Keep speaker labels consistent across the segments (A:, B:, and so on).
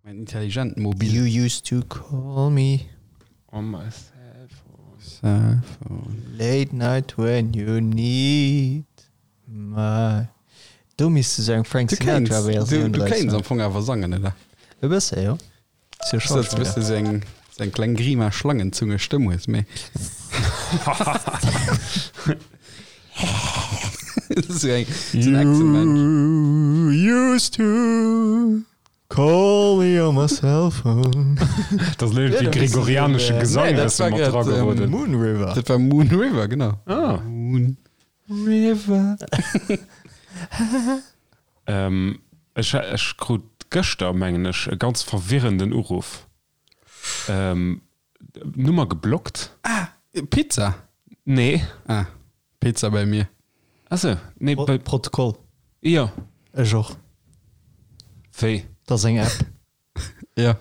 A: Mäin intelligent Mobil.
B: You used to call me.
C: On my cell phone.
A: Cell phone.
B: Late night when you need my. Do misst du sou eng Frank
A: Du kéints,
B: Sinatra
A: du,
B: Versioun
A: du
B: draus
A: kéints am
B: maachen.
A: Fong awer sangen, oder?
B: E bësse, jo. Ass jo
A: Ass dat
B: Schauspiller.
A: bësse sou eng, sou eng kleng Grima Schlangenzunge Stëmm hues, mee. Sou eng, sou en Echsenmensch.
B: You used to call me on my cell phone.
C: Dat ass elo wéi gregorianesche Gesang,
A: Nee, dat
C: dat
A: war
C: mat
A: grad,
C: drageroden.
B: Moon River.
A: Dat war Moon River, genau.
C: Ah.
A: Moon River.
C: Ähm, ech, ech krut gëschter, mengen ech, e ganz verwirrenden Uruff. Ähm, Nummer geblockt.
A: Ah, Pizza?
C: Nee.
A: Ah, Pizza bei mir.
C: Ach sou, nee, bei.
B: Protokoll.
C: Jo.
B: Ech och.
C: Wéi?
B: Dat ass eng App.
A: Ja.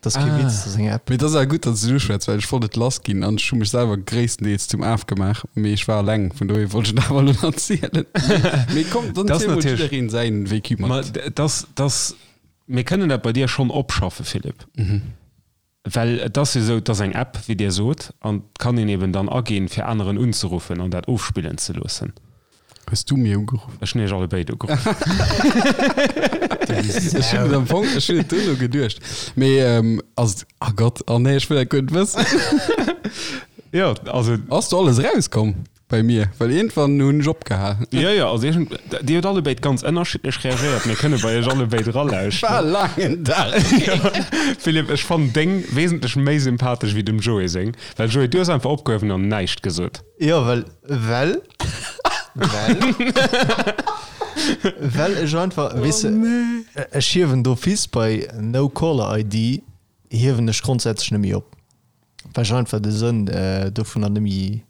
B: Dat ass kee Witz, dat ass eng App.
A: Mee et ass awer gutt, datt s du et uschwätz, well ech wollt et lass ginn an ech hu mech selwer gréisstendeels zum Af gemaach, mee ech war eleng, vun dohier wollt ech et awer elo nach zielen. Mee komm, dann
C: Dat ass
A: ziel mol
C: natierlech.
A: jiddereen säin Vécu
C: Ma
A: mat.
C: dat, dat, mir kënnen dat bei dir schonn opschaffe, Philippe. Well et ass jo esou, et ass eng App, wéi Dir sot, an et kann een eben dann aginn, fir aneren unzeruffen an dat ofspillen ze loossen.
A: Hues du mir ugeruff?
C: Ech hunn Iech allebéid ugeruff.
A: Ech hunn et am Fong, ech hunn et duerno geduecht. Mee ass et, ah Gott, oh nee, ech wëll dat guer net wëssen.
C: Jo, also.
A: Ass do alles erauskomm? Bei mir, well iergendwann hunn ech opgehal.
C: Jo, jo, also ech hunn, Dir hutt allebéid ganz ënnerschiddlech reagéiert. Mir kënne bei Iech allebéid eralauschteren.
A: War e laangen Dag.
C: Philippe, ech fannen deng wesentlech méi sympathesch wéi dem Joé seng, well Joé, du hues einfach opgehuewen an näischt gesot.
B: Jo, well, well, well, well ech einfach, weess de, ech hiewen d'office bei No Caller ID hiewen ech grondsätzlech net méi op, well ech einfach de Sënn dovunner net méi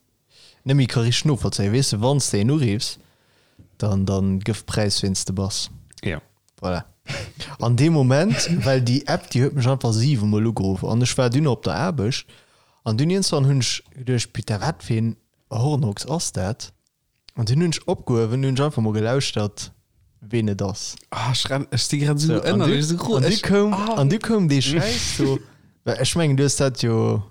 B: Net méi ka richteg novollzéien. Weess de, wann s de een uriffs, dann, dann gëff Präis ween s de bass.
C: Jo.
B: Voilà. An deem Moment, well déi App, déi huet mech einfach 7 mol ugeruff an ech war dunn op der Aarbecht an dunn iergendwann hunn ech geduecht, Putain, wat fir een Hornochs ass dat? An dunn hunn ech opgehuewen, hunn ech einfach mol gelauschtert, ween et ass.
A: Ah, ech renn, ech si grad esou
B: So, an
A: ënnerlech
B: du,
A: esou gro.
B: an du
A: Ech,
B: koum,
A: ah.
B: an du koum dee Schäiss do, well ech mengen, du hues dat jo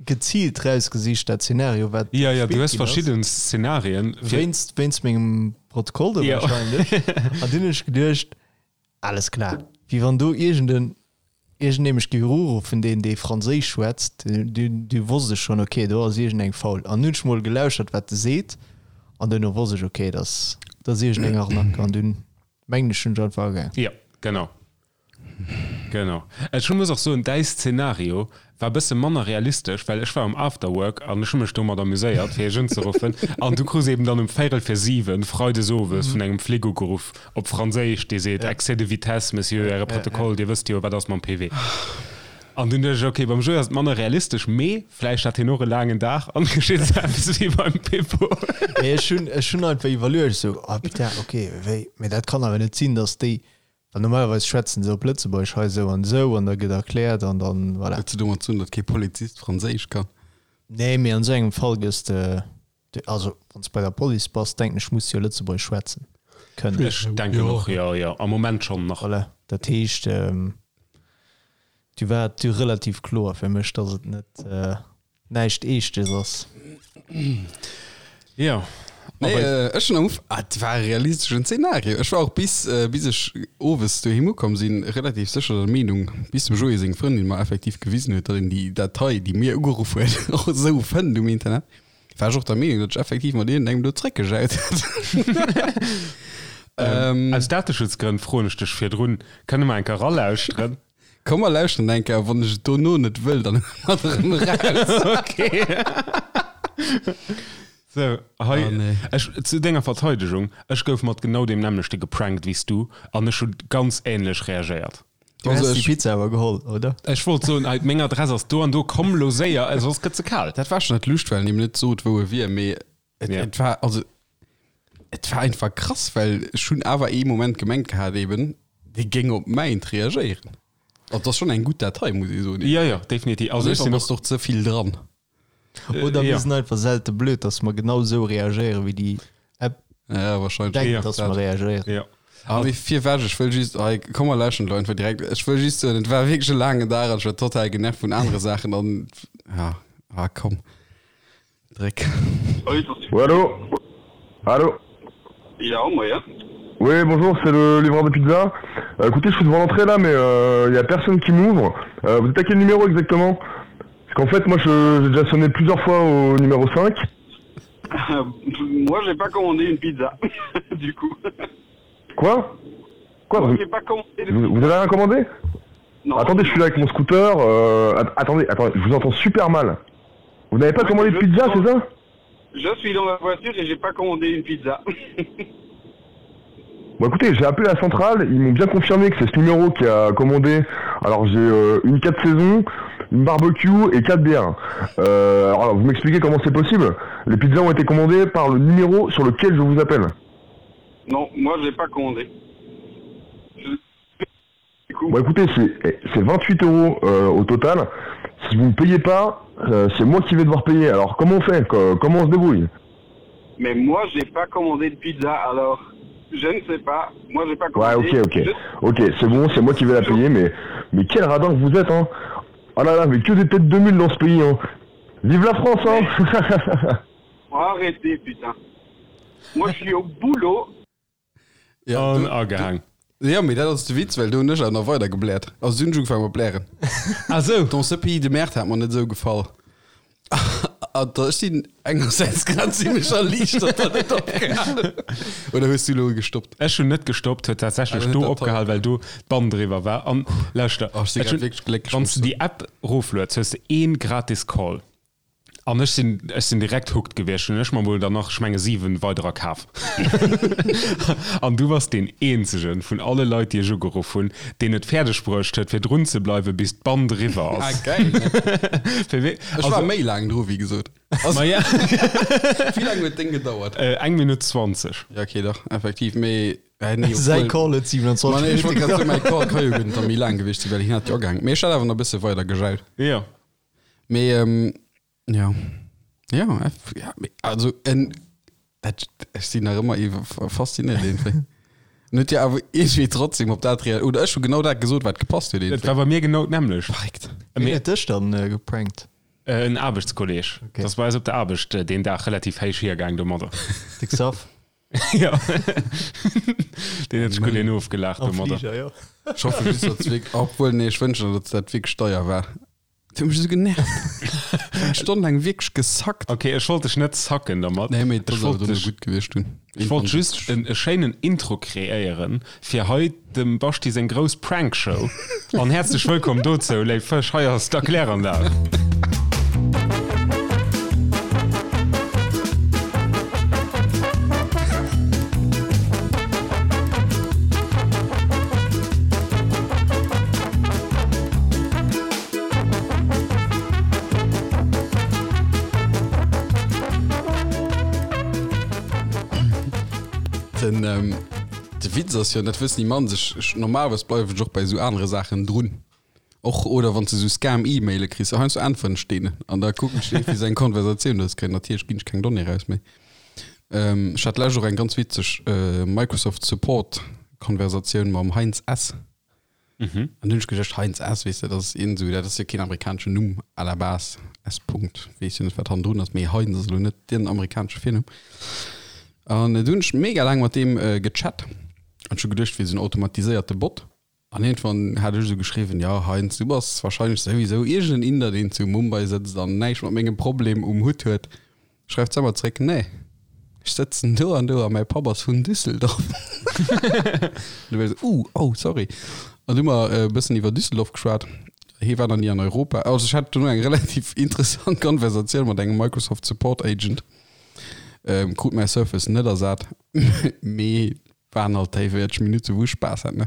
B: geziilt rausgesicht, dat Szenario, wat
C: Ja, ja, du
B: gespillt
C: hues
B: ginn ass.
C: verschidden Szenarien. Fir
B: Wéinst, wéinst mengem Protokoll do
C: Ja.
B: wahrscheinlech. An dunn hunn ech geduecht, alles klar, wéi wann do iergenden, iergendee mech géif uruffen, deen, dee Franséisch schwätzt, du, du wosst ech schonn, okay, do ass iergendeng faul. An hunn ech mol gelauschert, wat e seet, an duerno wosst ech, okay, dat ass, dat ass iergendeng Arnaque. An dunn mengen ech, hunn ech einfach agaang.
C: Ja, genau. Genau. Ech muss och soen, däi Szenario war bësse manner realistesch, well ech war um Afterwork an ech hu mech domat amuséiert, fir iech unzeruffen. An du krus eben dann um véirel vir 7 freides owes vun engem Flic ugeruff op Franséisch, dee seet, Excès de vitesse, Monsieur, Äre Protokoll, Dir wësst jo, wat ass mam PV. An dunn duecht ech, okay, beim Joé ass et manner realistesch, mee vläicht hat hien och e laangen Dag an geschitt esou eppes wéi beim Pippo.
B: Mee ech hunn, ech hunn einfach iwwerluecht, esou, ah putain, okay, wéi, mee dat kann awer net sinn, datt déi Well normalerweis schwätzen se op Lëtzebuergesch hei esou an esou an da gëtt erkläert an dann, voilà.
A: Huet se domat ze dunn, datt kee Polizist Franséisch kann?
B: Nee, mee an esou engem Fall gëss de, also wann s de bei der Police bass, denken ech, muss de jo Lëtzebuergesch schwätzen kënnen.
C: Ech denken och, jo, jo, am Moment schonn nach.
B: Voilà, dat heescht, du war et du relativ kloer fir mech, datt et net näischt Eeschtes ass.
C: Jo.
A: Nee, äh, ech hunn am Uf ah, et war e realisteschen Zeenario. Ech war och bis, äh, bis ech owes doheem ukomm sinn, relativ sécher der Meenung, bis dem Joé seng Frëndin mer effektiv gewisen huet, datt een déi Datei, déi mir ugeruff huet, och esou fënnt um Internet, war ech och der Meenung, datt ech effektiv mat iergendengem do zréckgejaut hätt.
C: Ähm, Aus Dateschutzgrënn froen ech dech virdrun, kënne mer eng Kéier eralauschteren?
A: Komm mer lauschteren eng Kéier, wann ech et dono net wëll, dann huele mer et erëm eraus.
C: Okay. Sou, hei,
A: Oh, nee.
C: ech, zu denger Verteidegung, ech gouf mat genau deem nämmlechte geprankt wéi s du an ech hu ganz ähnlech reagéiert.
B: Du
A: Also
B: häss déi
A: ech-
B: Pizza awer geholl, oder?
C: Ech wollt soen, hei, meng Adress ass do an do, komm lo séier, soss gëtt se kal.
A: Dat war schon net Lust, well en him net sot, wou e wier, mee et,
C: Ja.
A: et war, also, et war einfach krass, well ech hunn awer ee Moment gemengt gehat eben, dee géing op mäint reagéieren. Also, dat ass schon eng gutt Datei, muss ee soen.
C: Ja, ja, definitiv. Also ech
A: An
C: sinn
A: ass
C: och,
A: doch ze vill dran.
B: Oder mir
C: ja.
B: sinn einfach selte blöd, dass mer genau esou reagéieren, wéi déi App
A: Ja, wahrscheinlech.
B: denkt,
C: Ja,
B: dass mer reagéieren.
C: Ja.
A: Ah, mee virwech, ech wëll just, hei, komm mer läschen elo einfach direkt. Ech wëll just soen, et war wierklech e laangen Dag an ech war total genervt vun anere Saachen an, ja, ah, komm, dréck.
D: Oui, allô Allô
E: Ja, moien.
D: Oui, bonjour, c'est le livreur de pizza. Euh, écoutez, je suis devant l'entrée là, mais il n'y a personne qui m'ouvre. Euh, vous êtes à quel numéro exactement Parce qu'en fait, moi, je- j'ai déjà sonné plusieurs fois au numéro 5.
E: Moi, j'ai pas commandé une pizza, du coup.
D: Quoi Quoi
E: Moi,
D: vous,
E: j'ai pas commandé de
D: vous, vous avez rien commandé
E: Non.
D: Attendez, je suis là avec mon scooter. euh, att- attendez, attendez, je vous entends super mal. Vous n'avez pas
E: Ouais,
D: commandé de
E: je-
D: pizza, c'est ça
E: Je suis dans la voiture et j'ai pas commandé une pizza.
D: Bon écoutez, j'ai appelé la centrale, ils m'ont bien confirmé que c'est ce numéro qui a commandé. Alors j'ai euh, une 4 saisons, une barbecue et 4 bières. Euh, alors vous m'expliquez comment c'est possible Les pizzas ont été commandées par le numéro sur lequel je vous appelle.
E: Non, moi, j'ai pas commandé. Je- Du coup,
D: Bon écoutez, c'est eh, c'est 28 euros euh, au total. Si vous ne payez pas, euh, c'est moi qui vais devoir payer. Alors comment on fait Co- Comment on se débrouille
E: mais moi, j'ai pas commandé de pizza, alors je ne sais pas. Moi, j'ai pas
D: Ouais,
E: commandé.
D: ok, ok.
E: Je-
D: Ok, c'est bon, c'est moi qui vais la payer, mais, mais quel radin que vous êtes, hein Oh là là, mais que des têtes de mule dans ce pays, hein Vive la France, hein
E: Arrêtez, putain. Moi, je suis au boulot.
A: Ja,
C: An
A: du,
C: agehaang.
A: ja, mee dat ass de Witz, well do hunn ech awer nach weider gebläert. Also du hunn ech ugefaangen mat blären.
C: Ah sou.
A: Dans ce pays de merde hat mer net esou gefall. An da ech sinn engersäits grad zimmlech erliichtert, datt et opgehal huet. Oder hues du elo gestoppt?
C: Ech hunn net gestoppt, huet tatsächlech
A: Ah,
C: do
A: dat toll.
C: opgehal, well do d'Band eriwwer war. An lauschter,
A: Oh, ech si
C: ech
A: grad
C: hunn,
A: wierklech glécklech,
C: wann
A: muss
C: s du
A: ech
C: déi App roflueds, hues de ee gratis Call. An ech sinn, ech sinn direkt hooked gewiescht, hunn ech mer mol dann nach, ech menge 7 weiderer kaf. An du bass deen eenzegen vun alle Leit, déi ech ugeruff hunn, deen et fäerdeg bruecht huet, fir drun ze bleiwen, bis d'Band eriwwer
A: Ah,
C: ass.
A: geil, ne?
C: Fir wéi,
A: Ech war
C: also,
A: méi laang dru, wéi gesot. Also,
C: ma ja,
A: wéi laang huet d'Déng gedauert?
C: äh, eng Minutt 20.
A: Ja, okay, dach, effektiv, mee, äh, nee,
B: Säi
A: obwuel-
B: Call huet 27
A: Ma nee, ech wollt
B: Minutte
A: grad soen,
B: gedauert.
A: mäi Call ka jo guer net da méi laang gewiescht sinn, well hien hat jo agehaangen. Mee ech hat awer nach e bësse weider gejaut.
C: Jo.
A: Mee ähm, ja. Ja, eff, ja, mee, also en, dat, ech sinn nach ëmmer iwwer fasziniert iergendwéi. En huet jo awer iergendwéi trotzdem op dat rea oder ech hu genau dat gesot, wat gepasst huet
C: Et
A: iergendwéi.
C: war bei mir genau d'nämmlecht.
A: Verréckt.
B: Wien
C: Mee,
B: huet dech dann äh, geprankt?
C: äh, en Aarbechtskolleg.
B: Okay.
C: Das war eis op der Aarbecht äh, deen Dag relativ héich hiergaang domadder.
B: De Xav?
C: Ja. Deen huet sech gutt een ofgelaacht
B: Am
C: domadder.
B: Fliger, jo.
A: Ech hoffe just, datt es wierk obwuel, nee, ech wënschen, datt dat wierklech deier war. Du hues mech esou genervt. Eng Stonn laang wierklech gesackt.
C: Okay, ech wollt dech net sacken dermat.
A: Nee, mee
C: Ech
A: dat ass awer
C: wollt
A: dono
C: dech,
A: gutt gewiescht dunn.
C: ech wollt just en, e schéinen Intro kreéieren fir hei dem Baschti seng grouss Prankshow. An häerzlech wëllkomm dozou, léif Fësch, hei ass d'Erkläranlag.
A: Den, ähm, de Witz ass jo, dat wëssen déi mannst, ech, ech, normalerweis bleiwen ech och bei esou anere Saachen drun. Och, oder wann s de esou Scam-E-Maile kriss, heiansdo äntweren ech deenen an da kucken ech wéi se eng Konversatioun daraus kréien. Natierlech ginn ech keng Donnée raus, mee ähm, ech hat d'lescht och eng ganz witzeg äh, Microsoft Support Konversatioun mam Heinz S. An dunn hunn ech geduecht, Heinz S, weess de, dat ass iergend esou, dat ass jo keen amerikaneschen Numm à la base, S. Punkt, weess jo net, wat hannendrun ass, mee Heinz ass elo net den amerikanesche Virnumm. An du hunn ech mega laang mat deem gechat an ech hu geduecht, wier esou en automatiséierte Bot. An iergendwann hat ech esou geschriwwen, jo Heinz, du bass warscheinlech souwisou iergend en Inder, deen zu Mumbai sëtzt an näischt mat mengem Problem um Hutt huet. Schreift s'emmer zréck, Nee, ech sëtzen do an do a mäi Papp ass vun Düsseldorf. Du war ech esou, Uh, oh, sorry. An du hu mer e bëssen iwwer Düsseldorf geschwat. Hie war nach ni an Europa. Also ech hat dono eng relativ interessant Konversatioun mat engem Microsoft Support Agent. Krut mäi Surface net ersat, mee Waren alt déi 40 Minutte wou ech Spaass hat, ne?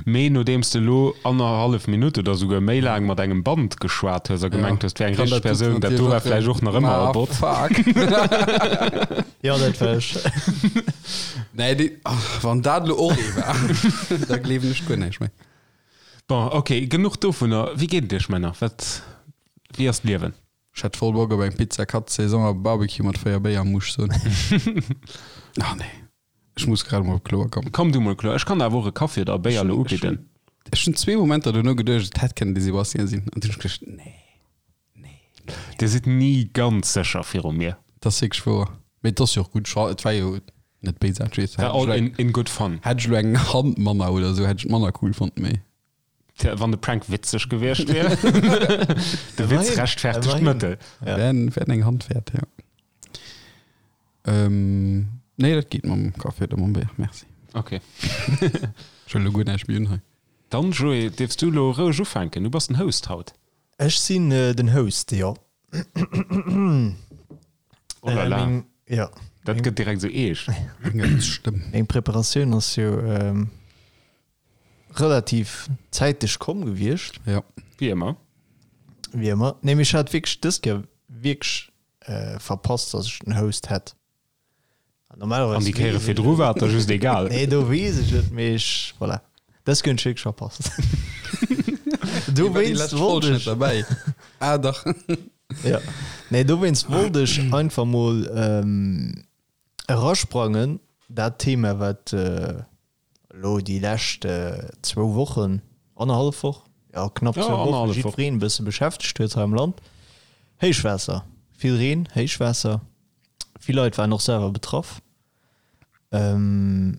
C: Mee nodeems de lo annerhallef Minutt oder souguer méi laang mat engem Band geschwat hues a gemengt hues, 't wär eng richteg Persoun, dat do war vläicht och nach ëmmer e Bot.
A: Fuck.
B: Jo, dat war ech.
A: Nee, déi, ach, wann dat lo och ee war, da gleewen ech guer näischt méi.
C: Bon, ok, genuch dovunner. Wéi geet et iech, Männer? Wat, wéi ass d'Liewen?
A: Ech hätt voll Bock op eng Pizza Cut Saison a Barbecue mat 4 Béier, muss ech soen. Ah, nee. Ech muss grad emol kloer kommen.
C: Komm du mol kloer. Ech kann der awer och e Kaffi oder e Béier elo ubidden.
A: Ech hunn zwee Momenter duerno geduecht, et hätt kënnen de Sébastien sinn. An dunn hunn ech geduecht, nee, nee, nee.
C: Dir sidd ni ganz sécher viru mir.
A: Dat ass wierklech wouer. Mee et ass jo och gutt. Ech et war jo net béisaarteg.
C: War all in, in good fun.
A: Hätt ech elo eng Hand manner oder esou, hätt ech et manner cool fonnt, mee.
C: Wann de Prank witzeg gewiescht wier. De Witz rechtfertegt d'Mëttel.
A: Wären, wären eng Hand wäert, jo. Ähm, nee, dat geet mam Kaffi oder mam Béier, merci.
C: Okay.
A: Ech wëll elo guer näischt méi un hei.
C: Dann, Joé, dierfs du elo roueg ufänken. Du bass den Host haut.
B: Ech sinn den Host, jo.
C: Oh la la.
B: Meng, ja.
C: Dat gëtt direkt esou eescht.
A: Eng Stëmm.
B: Meng Preparatioun ass jo relativ zäiteg komm gewiescht.
A: Ja.
C: Wéi ëmmer.
B: Wéi ëmmer. Nee, mee ech hat wierklech dës Kéier wierklech verpasst, dass ech den Host hätt.
C: An déi Kéiere virdru war et der just egal.
B: Nee, do weess ech et, mee ech, voilà. Dës Kéier hunn ech wierklech verpasst. Dowéinst wollt ech.
A: Derbäi. Ah, dach.
B: Ja. Nee, dowéinst wollt ech einfach mol erasprangen, dat Thema, wat Elo déi lescht zwou Wochen, annerhallef Woch, jo knapp zwou Wochen, jiddwereen e bësse beschäftegt huet hei am Land, Héichwaasser, vill Reen, Héichwaasser, vill Leit waren och selwer betraff. Wéi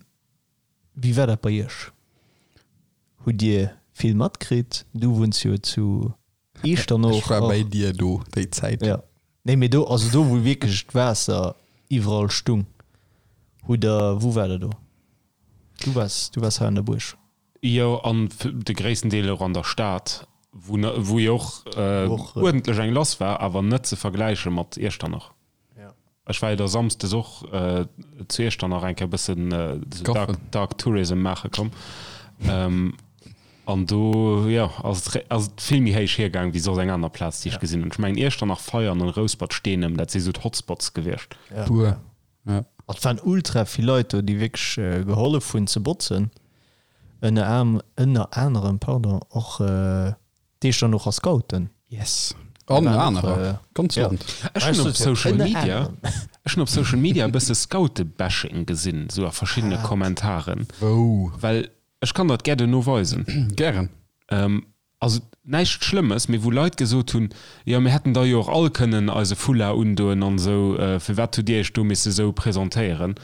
B: war dat bei Iech? Hutt Dir vill matkritt? Du wunns jo zu Eechternoch.
A: Ech war bäi dir do déi Zäit.
B: Jo. Nee, mee do, also do wou wierklech d'Waasser iwwerall stung, hutt der, wou war der do? Du waars, du waars hei an der Buerg.
C: Jo, an de gréissten Deel och an der Stad, wou, wou jo och uerdentlech eng lass war, awer net ze vergläiche mat Iechternach. Ech war jo da samsdes och zu Iechternach eng Kéier e bëssen esou Dark, Dark Tourism maache komm. An do, jo, ass et, ass et vill méi héich hiergaang wéi soss eng aner Plaz, déi ech gesinn hunn. Ech mengen Iechternach, Veianen an Rouspert-Steenem, dat si sou d'Hotspots gewiescht.
A: Puer, ja.
B: Et waren ultra vill Leit do, déi wierklech gehollef hunn ze botzen. Ënner ënner anerem, pardon, och d'Echternocher Scouten.
A: Yes. An anerer. Ganz Land.
C: Ech hunn op Social Media, ech hunn op Social Media e bësse Scoute-Bashing gesinn, sou a verschiddene Kommentaren.
A: Wou?
C: Well ech kann der et gär duerno weisen.
A: Gären.
C: Also näischt Schlëmmes, mee wou Leit gesot hunn, jo mir hätten da jo och all kënnen eise Foulard undoen an esou, firwat hutt Dir Iech do misse sou presentéieren?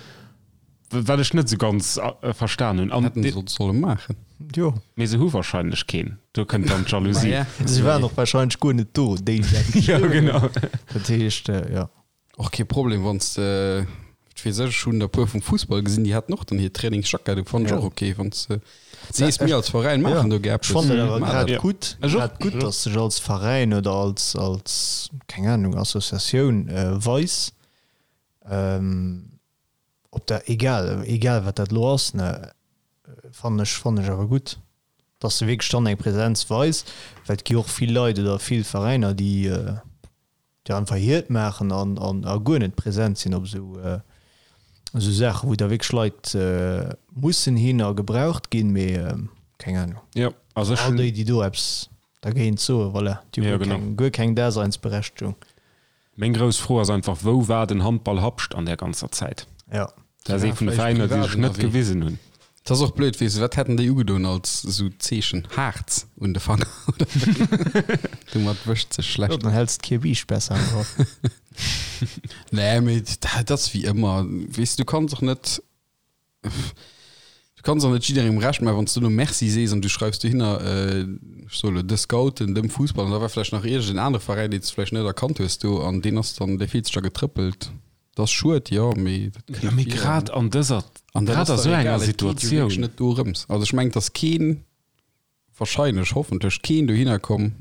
C: Wat ech net esou ganz verstan hunn.
A: Hätten se solle maachen.
B: Jo.
C: Mee se hu wahrscheinlech keen. Do kënnt dann d'Jalousie.
B: Se waren och wahrscheinlech guer net do, déi déi dat
C: Jo,
B: geschriwwen hunn.
C: genau.
B: Dat heescht, jo.
A: Och kee Problem wann s de, wat weess ech, ech hunn der puer vum Fussball gesinn, déi haten och dann hir Trainingsjackett u, fannen ech och ok, wann s de sees, mir als Veräin maachen do gär
B: Ech fannen dat awer
A: eppes,
B: grad gutt, grad gutt, datt sech als Veräin oder als, als, keng Ahnung, Associatioun weis, ob dat, egal, egal wat dat elo ass, ne, fannen ech, fannen ech awer gutt, datt se wierklech dann eng Präsenz weis, well et gi och vill Leit oder vill Veräiner, déi, déi einfach hiert maachen an an a guer net present sinn op esou esou Saachen, wou da wierklech Leit mussen hin a gebraucht ginn, mee keng Ahnung.
C: Jo, also ech
B: All
C: hunn.
B: déi, déi do eppes dergéint soen, voilà, déi hu
C: Jo,
B: guer
C: genau.
B: keng, guer keng Daseinsberechtegung.
C: Meng grouss Fro ass einfach, Wou war den Handball Habscht an där ganzer Zäit?
B: Jo.
C: Dat ass ee vun de Veräiner, déi sech net gewisen hunn.
A: Et ass och blöd, weess de, wat hätten déi ugedoen als esou Zeechen? Haarz un de Fanger oder wéi? Domat wëscht sech
B: Jo,
A: schlecht.
B: dann häls d'Kierbiischt besser am Grapp.
A: Nee, mee dat ass wéi ëmmer, weess de, du kanns och net, du kanns och net jidderengem Recht maachen, wann s du elo Merci sees an du schreifs dohinner, ech soe elo de Scouten, dem Fussball an da war vläicht nach iergend en anere Veräin, deen s de vläicht net erkannt hues do an deen ass dann, dee fillt sech da getrëppelt. Dat ass schued, jo, mee dat
C: Ja,
A: kënnt
C: mee
A: vir.
C: grad an dëser,
A: An dat
C: grad
A: ass
C: a
A: dach
C: sou enger
A: egal, et geet jo wierklech
C: Situatioun.
A: net dorëms. Also ech mengen, et ass keen, wahrscheinlech, hoffentlech keen dohinner komm,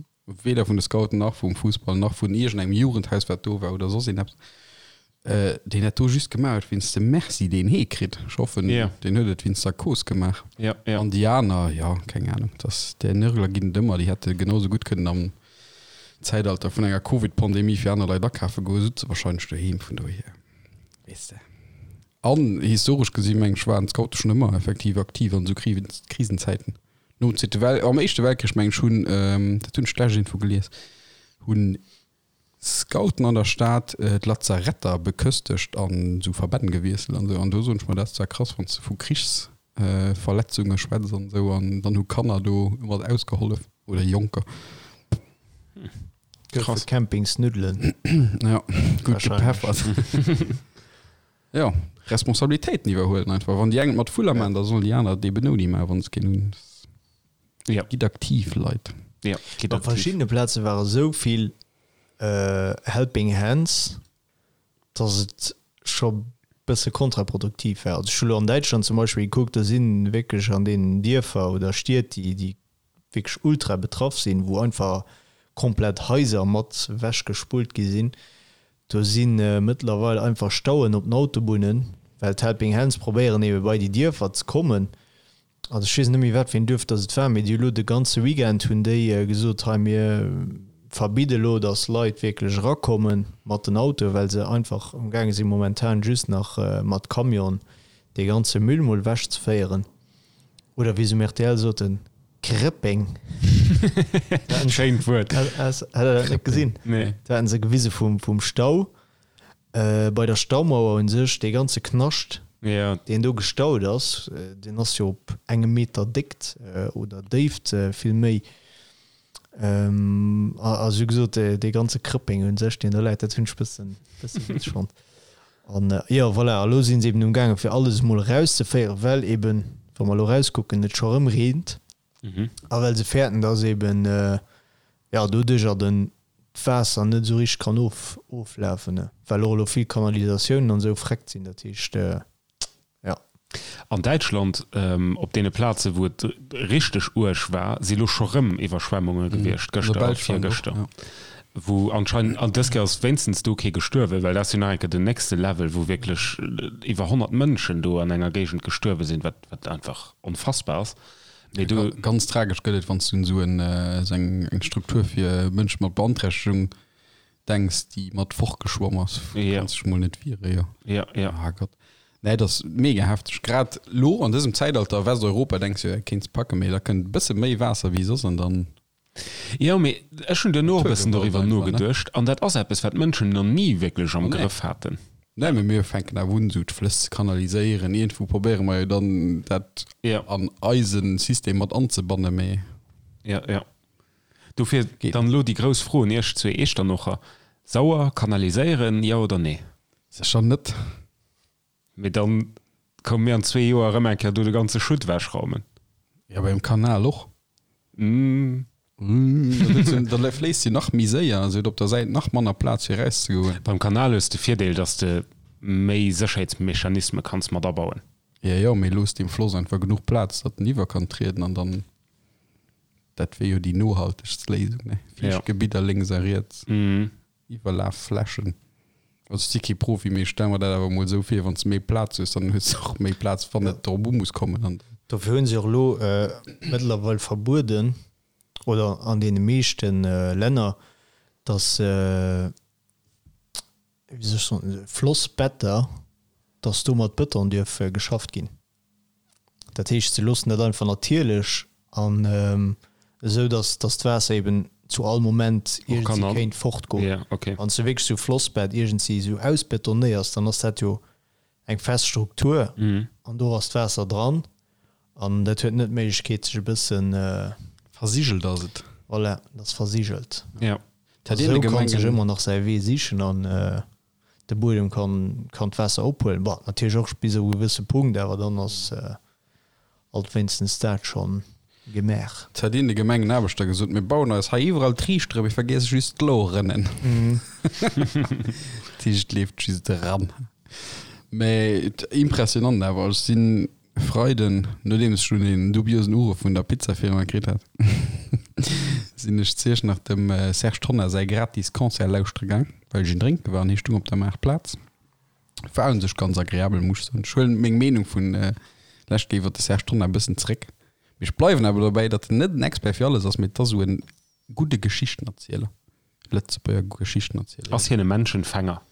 A: weder vun de Scouten nach vum Fussball nach vun iergendengem Jugendhaus, wat do war oder soss een eppes, deen dat do just gemaach huet wéinst dem Merci, deen hee kritt. Ech hoffen,
C: Ja.
A: deen huet et wéinst der Cause gemaach.
C: Ja, ja.
A: An déi aner, jo, keng Ahnung, dass där Nörgler ginn et ëmmer, déi hätte genau sou gutt kënnen am Zäitalter vun enger Covid-Pandemie fir aner Leit akafe goen, sutze wahrscheinlech doheem, vun dohier, weess de. An historesch gesi meng ech waren d'Scoute schonn ëmmer effektiv aktiv an esou Krisenzäiten. Nom Zweete Wel-, am Éischte Weltkrich meng ech hunn, dat hunn ech d'lescht iergendwou gelies, hunn. Scouten an der Stad d'Lazaretter beköstegt an esou Verbänn gewiesselt an esou. An do soen ech mer, dat ass zwar krass, wann s de vu Krichsverletzunge schwätz an esou, an dann hu Kanner do mat ausgehollef oder Jonker.
B: Goufe Campingsnuddelen.
A: Ja, gutt gepeffert. Jo, Responsabilitéiten iwwerhuelen einfach. Wann déi eng et mat Vuller maachen, da sollen déi aner et eben ouni maachen, wa se keen hunn.
C: Ja.
A: Gitt aktiv, Leit.
C: Ja, gitt
B: Op
C: aktiv.
B: verschiddene Plaze ware sou vill Helping Hands, dass et scho bësse kontraproduktiv war. Also ech hu lo an Däitschland zum Beispill gekuckt, do si wierklech an deenen Dierfer oder Stied, déi déi wierklech ultra betraff sinn, wou einfach komplett Haiser mat ewechgespullt gi sinn, do si mëttlerweil einfach Stauen op den Autobunnen, well d'Helping Hands probéieren ebe bei déi Dierfer ze kommen. Also ech weess net méi wat fir een Duerf dass et war, mee déi hu lo de ganze Weekend hunn déi gesot, hei mir verbidde lo, dass Leit wierklech erakomme mat den Autoen, well se einfach am gaange si momentan just nach mat Camion dee ganze Müll mol ewech ze féieren. Oder wéi se um rtl soten, Krëppeng.
C: Schéint Wuert.
B: Hat der dat net gesinn?
C: Nee.
B: Do haten se gewise vum Stau. Bei der Staumauer un sech, dee ganze Knascht, deen do gestaut ass, deen ass jo op engem Meter Déckt oder Déift vill méi. A sou gesot, dee ganze Krëppeng un sech, deen do läit, dat hunn ech bëssen, bësse witzeg fonnt. An jo, voilà, a lo si se eben umgaangen, fir alles emol erauszeféieren, well eben, wa mer elo erauskucken, et scho erëm reent. A well se fäerten, dass eben, jo, doduercher den d'Waasser net esou richteg kann of, oflafen, ne, well och elo vill Kanalisatiounen an esou vreckt sinn. Dat heescht, jo.
C: An Däitschland, op deene Plaze wou et richteg uerg war, si lo scho rëm Iwwerschwemmunge gewiescht, gëschter a virgëschter, wou anscheinend, an dës Kéier ass wéinstens do kee gestuerwen, well dat ass jo nach eng Kéier den nächste Level, wou wierklech iwwer 100 Mënschen do an enger Géigend gestuerwe sinn, wat, wat einfach onfassbar ass.
A: Mee do. Ganz tragesch gëtt et, wann s du un esou eng eng Struktur fir Mënsche mat Beanträchtegung denks, déi mat fortgeschwomm ass.
C: Ja.
A: Kanns dech mol net wiere, jo.
C: Ja, ja.
A: Ah Gott. Nee, dat ass mega hefteg. Grad lo an dësem Zäitalter, Westeuropa, denks du, jo, kéints packen, mee da kënnt e bësse méi Waasser wéi soss an dann.
C: Jo, mee ech hunn duerno och e bëssen
A: Naturgewalt
C: doriwwer
A: einfach, ne?
C: nogeduecht an dat ass eppes, wat d'Mënschen nach ni wierklech am
A: Nee.
C: Grëff haten.
A: Nee, mee mir fänken awer un, esou d'Flëss ze kanaliséieren. Iergendwou probéiere mer jo dann, dat
C: Ja.
A: an eise System mat anzebannen, mee.
C: Ja, ja. Dofir
A: Geet
C: dann elo déi grouss Fro un Iech zwee Eechternocher, Sauer kanaliséieren, jo oder nee?
A: Sécher net.
C: Mee dann koume mir an zwee Joer erëm eng Kéier do de ganze Schutt ewechraumen.
A: Jo, beim Kanal och. Da fléisst se nach méi séier, se huet op der Säit nach manner Plaz fir erauszegoen.
C: Beim Kanal hues de Virdeel, dass de méi Sécherheetsmechanisme kanns mat abauen.
A: Jo, jo, mee looss dem Floss einfach genuch Plaz, datt en iwwer kann trieden an dann, dat wier jo déi nohaltegst Léisung, ne? Fiichtgebidder lénks a riets. Iwwerlafflächen. Also ech si kee Profi, mee ech stelle mer dat awer emol esou vir, wann s de méi Plaz hues, dann hues de och méi Plaz, wann et drop u muss kommen. An
B: Dofir hunn se och elo mëttlerweil verbueden, oder an deene meeschte Länner, datt, wéi soll ech soen, Flossbetter, datt do mat Bëton dierf geschafft ginn. Dat heescht, se loossen dat einfach natierlech an esou, datt datt d'Waasser eben zu all Moment iergendwéi kéint fortgoen.
C: Yeah, okay.
B: Wann s de wierklech esou Flossbett iergendwéi esou ausbetonéiers, dann ass dat jo eng fest Struktur an do ass d'Waasser dran an dat huet net d'Méiglechkeet sech e bëssen.
A: Versigelt ass et.
B: Voilà, et ass versigelt.
C: Ja.
B: Esou kann sech ëmmer nach säi Wee sichen an. De Buedem kann kann d'Waasser ophuelen, bon natierlech och bis op e gewësse Punkt, awer dann ass alt wéinstens dat schonn gemaach.
A: Et hätt een de Gemengenaarbechter gesot, mir bauen eis hei iwwerall Triichtere, mir vergiesse just d'Lorënnen. Dat heescht, et leeft just eran. Mä impressionant awer, ech sinn Freiden, nodeems ech dunn een dubiosen Uruff vun der Pizzafirma kritt hat, sinn ech zu Iechternach dem Serge Tonnar säi gratis Concert lauschtere gaang, well ech een drénke war an hie stung op der Maartplaz. War un sech ganz agreabel, muss ech soen. Ech huelen meng Meenung vun lescht Kéier iwwer de Serge Tonnar e bëssen zeréck, mee ech bleiwen awer dobäi, datt en net en Expert fir alles ass, mee et ass esou en gudde Geschichtenerzieler, Lëtzebuerger Geschichtenerzieler.
C: Ass hien e Menschenfänger?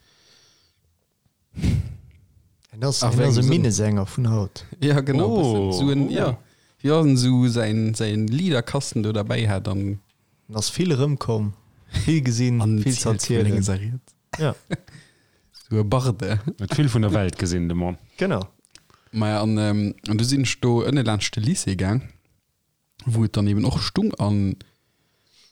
B: En ass, en ass e Minnesänger vun haut.
A: Ja genau oh, so en, oh. ja. Ja, en so säin, säin Liederkasten do derbäi hat an.
B: En ass vill erëmkomm. Vill gesinn, vill ze erzielen.
A: Ja. Sou e Barde.
C: Huet vill vun der Welt gesinn, de Mann.
B: Genau.
A: Maja, an, ähm, an du sinn ech do ënne laanscht de Lycée gaang, wou et dann eben och stung an